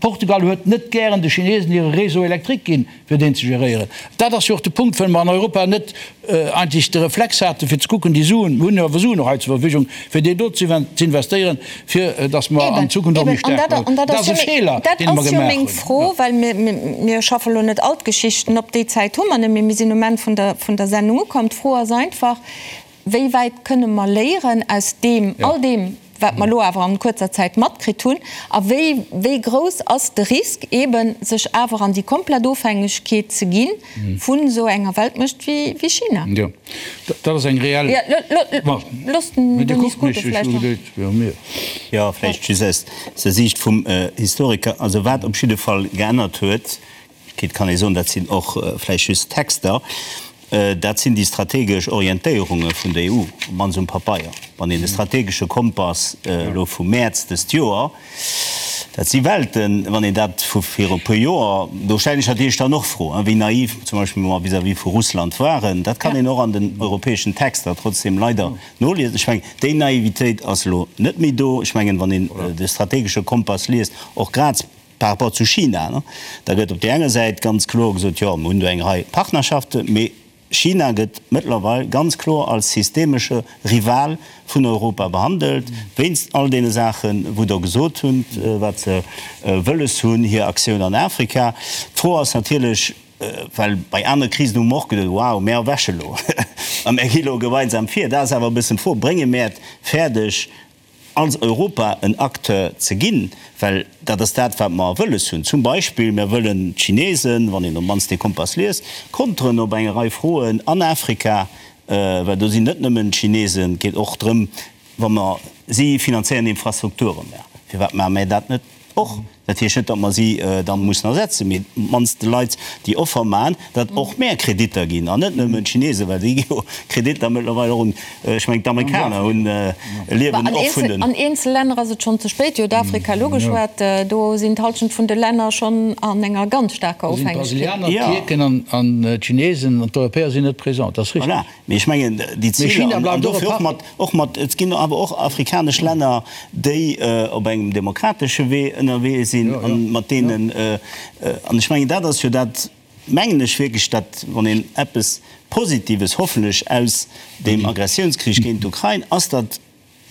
D: Portugal huet net gären de Chinesen hire Réseau électrique ginn, fir deen ze geréieren. Dat ass jo och de Punkt, well mer an Europa net eigentlech de Reflex haten, fir ze kucken, déi Suen, mir hunn jo awer Suen och hei zur Verfügung, fir déi do ze investéieren, fir datt mer an Zukunft och méi staark bleiwen. Dat ass e Feeler, dee mer
A: Dat ass jo
D: gemaach
A: meng
D: hunn.
A: Fro, well mir schaffe lo net all d'Geschichten op, déi Zäit hu mer net méi, mir sinn um Enn vun der Sendung ukomm. D'Fro ass einfach, Wéi wäit kënne mer léieren aus deem, all deem, wat mer elo awer an kuerzer Zäit matkritt hunn? A wéi, wéi grouss ass de Risk eeben, sech awer an déi komplett Ofhängegkeet ze gi vun esou enger Weltmuecht wéi, wéi China?
D: Jo, dat ass eng reell.
A: Jo, loosst den Denis Scuto vläicht nach.
C: Jo, vläicht just aus der Siicht vum Historiker. Also wat op jidde Fall geännert huet, Et kann ee soen, dat sinn och vläicht just Texter, dat sinn déi strategesch Orientéierunge vun der EU, op d'mannst um Papeier. Wann een de strategesche Kompass elo vum Mäerz dëst Joer, dat si Welten, wann een dat vu viru e puer Joer, do stellen ech natierlech dann och Fro, wéi naiv zum Beispill mer vis-à-vis vu Russland waren, dat kann een och an den europäeschen Texter trotzdem leider noliesen. Ech mengen, déi Naivitéit ass elo net méi do. Ech mengen, wann een de strategesche Kompass liest, och grad, Par rapport zu China, da gëtt op där enger Säit ganz kloer gesot, jo, mir hunn do eng Rei Partnerschaften, mee China gëtt mëttlerweil ganz kloer als systemesche Rival vun Europa behandelt, wéinst all deene Saachen, wou Der gesot hutt, wat se wëlles hunn, hir Aktioun an Afrika. D'Fro ass natierlech, well bei anere Krisen hu mer och geduet, wow, mär erwäche lo a mär gi lo gemeinsam vir. Dat ass awer e bëssen d'Fro, Brénge mär et fäerdeg, als Europa en Acteur ze ginn, well dat ass dat, wat mer wëlles hunn. Zum Beispill, mir wëllen d'Chinesen, wann een op d'mannst dee Kompass liest, konteren op eng Rei Froen an Afrika, well do sinn net nëmmen d'Chinesen, et geet och drëm, wa mer, si finanzéieren Infrastrukturen, mä firwat maache mir dat net och? Dat heescht net, datt mer si dann mussen ersetzen, mee op d'mannst de Leit déi Offer maachen, datt och mär Kreditter ginn an net nëmmen d'Chinesen, well déi gi jo Kreditter mëttlerweil och un, ech mengen d'Amerikaner hunn, liewen och vun den.
A: An eenzel Länner ass et schonn ze spéit. Dir hutt Afrika elo geschwat, do sinn d'Halschent vun de Länner schonn an enger ganz staarker
D: Do sinn
A: Ofhängegkeet.
D: d'Brasilianer, d'Tierken an d'Chinesen an d'Europäer sinn net présent, dat ass richteg.
C: Voilà. Mee ech mengen, déi
D: Mee
C: Ziler,
D: China
C: an
D: bleift och e
C: dofir och
D: Partner.
C: mat, och mat, et ginn awer och afrikanesch Länner, déi op engem demokratesche Wee ënnerwee sinn,
D: Jo,
C: an
D: jo,
C: mat
D: jo.
C: deenen, an ech mengen, dat ass jo dat, mengen ech wierklech, dat, wann een eppes Positives hoffentlech aus deem Aggressiounskrich géint d'Ukrain, ass, datt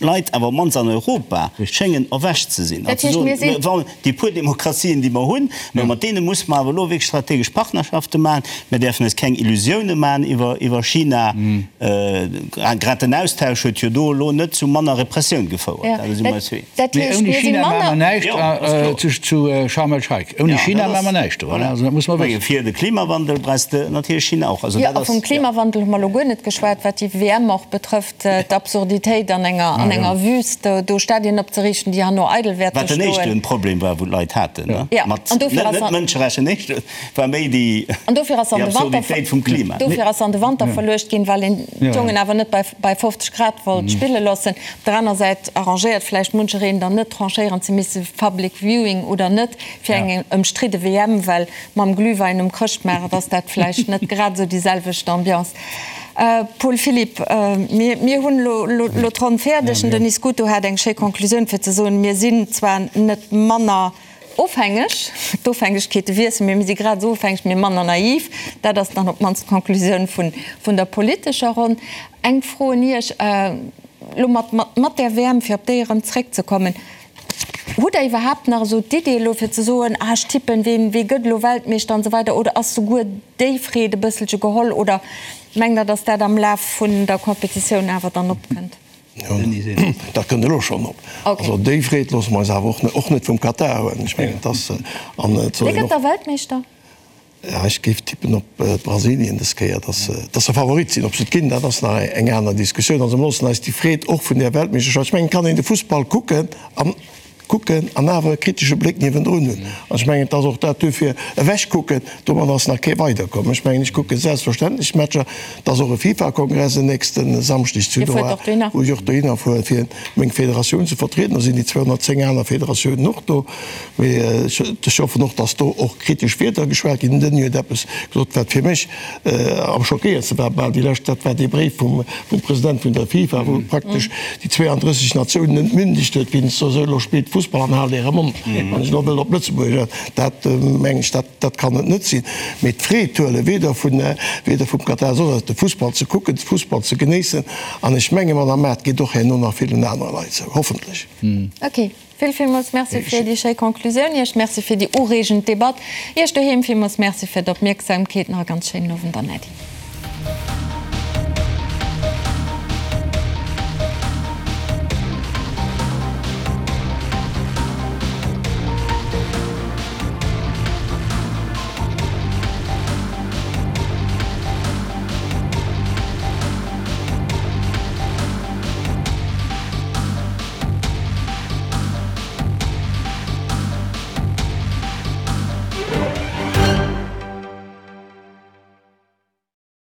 C: Leit, awer op d'mannst an Europa, schéngen erwächt ze sinn an
A: Dat
C: ze
A: heescht,
C: soen,
A: mir sinn.
C: Wa déi puer Demokratien, déi mer hunn, mä mat deene musse mer awer elo wierklech strategesch Partnerschafte maachen. Mir däerfen eis keng Illusioune maachen iwwer, iwwer China. Grad den Austausch huet jo do elo net zu manner Repressioun gefouert. Dat si mer eis eens.
A: Dat
D: Mee
A: heescht,
D: ouni
A: mir si
D: China maache mer
A: manner.
D: näischt zu Sharm el-Sheikh. Ouni China maache mer näischt do. Also dat muss mer wëssen.
C: Fir de Klimawandel brauchs de natierlech China och. Also
A: Jo,
C: dat
A: a
C: ass,
A: vum
C: jo.
A: Klimawandel hu mer elo guer net geschwat, wat déi WM och betrëfft, d'Absurditéit an enger, an enger Wüst do Stadien opzeriichten, déi herno eidel wäerte
C: Wat den
A: stoen.
C: éischte Problem war, wou d'Leit haten, ne?
A: Jo,
C: Mat,
A: an dofir
C: net,
A: ass
C: net Mënscherecht, den éischte war méi déi,
A: An dofir ass an
C: déi
A: de Wanter,
C: Absurditéit vum Klima.
A: dofir ass an de Wanter verluecht ginn, well een d'Jongen awer net bei, bei 50 Grad wollt spille loossen. Op der aner Säit arrangéiert vläicht munchereen dann net, tranchéieren ze misse, Public Viewing oder net, fir eng ëmstridde WM, well mam Glühwein um Chrëschtmaart ass dat vläicht net grad esou déi selwecht Ambiance. Paul Philipp, mir, mir hunn elo, elo d'Ronn fäerdeg. Den Denis Scuto hat eng schéi Conclusioun fir ze soen, mir sinn zwar net manner ofhängeg, d'Ofhängegkeete wiessen, mee mir si grad esou ofhängeg, mee manner naiv. Dat ass dann op d'mannst d'Conclusioun vun, vun der politescher Ronn. Eng Fro un Iech, elo mat, mat, mat där WM, fir op déi erëm zréckzekommen, Hutt Der iwwerhaapt nach esou d'Idee elo fir ze soen, ah ech tippen, ween, wee gëtt elo Weltmeeschter an esou weider, oder ass souguer déi Freed e bësselche geholl oder mengt Der, datt dat am Laf vun der Competitioun awer dann opkënnt?
B: Sinn. Dat kënnt elo schonn op. Also déi Freed loosse mer eis awer och net, och net vum Katar huelen. Ech mengen, et ass, an et soll
A: een och. Wie gëtt da Weltmeeschter?
B: Ja, ech géif tippen op Brasilien dës Kéier, dass se, dass se Favorit sinn. Ob se et ginn, dat ass nach eng aner Diskussioun. Also mer loossen eis déi Freed och vun där Weltmeeschterschaft, ech mengen, et kann een de Fussball kucken an kucken an awer e kritesche Bléck niewendrun hunn. An ech mengen, et ass och dat duerfir ewechkucken, domat ass nach kee weiderkomm. Ech mengen, ech kucke selbstverständlech d'Matcher. Et ass och e FIFA-Kongress en nächste Samschdeg zu Doha, wou ech och dohinner fuere fir meng Federatioun ze vertrieden. Do sinn déi 210 aner Federatiounen och do. Mee ech hoffen och, datt do och kritesch Wierder geschwat ginn. Den Denis huet eppes gesot, wat fir mech am schockéiertste war bal déi lescht, dat war dee Bréif vum President vun der FIFA, wou praktesch déi 32 Natiounen entmündegt huet, wéinst esou, elo spillt Fussball an haalt äre Mond, wann ech elo wëll op Lëtzebuergesch, dat mengen ech, dat dat kann et net sinn. Mee d'Freed huelen, weder vun, weder vum Katar, soss eppes, de Fussball ze kucken, de Fussball ze genéissen an ech menge Madame Maart, geet och herno nach villen anere Leit esou, hoffentlech.
A: Ok, vill villmools Merci fir déi schéi Conclusioun. Iech Merci fir déi ureegend Debatt. Iech doheem villmools Merci fir d'Opmierksamkeet. Nach e ganz schéinen Owend an Äddi.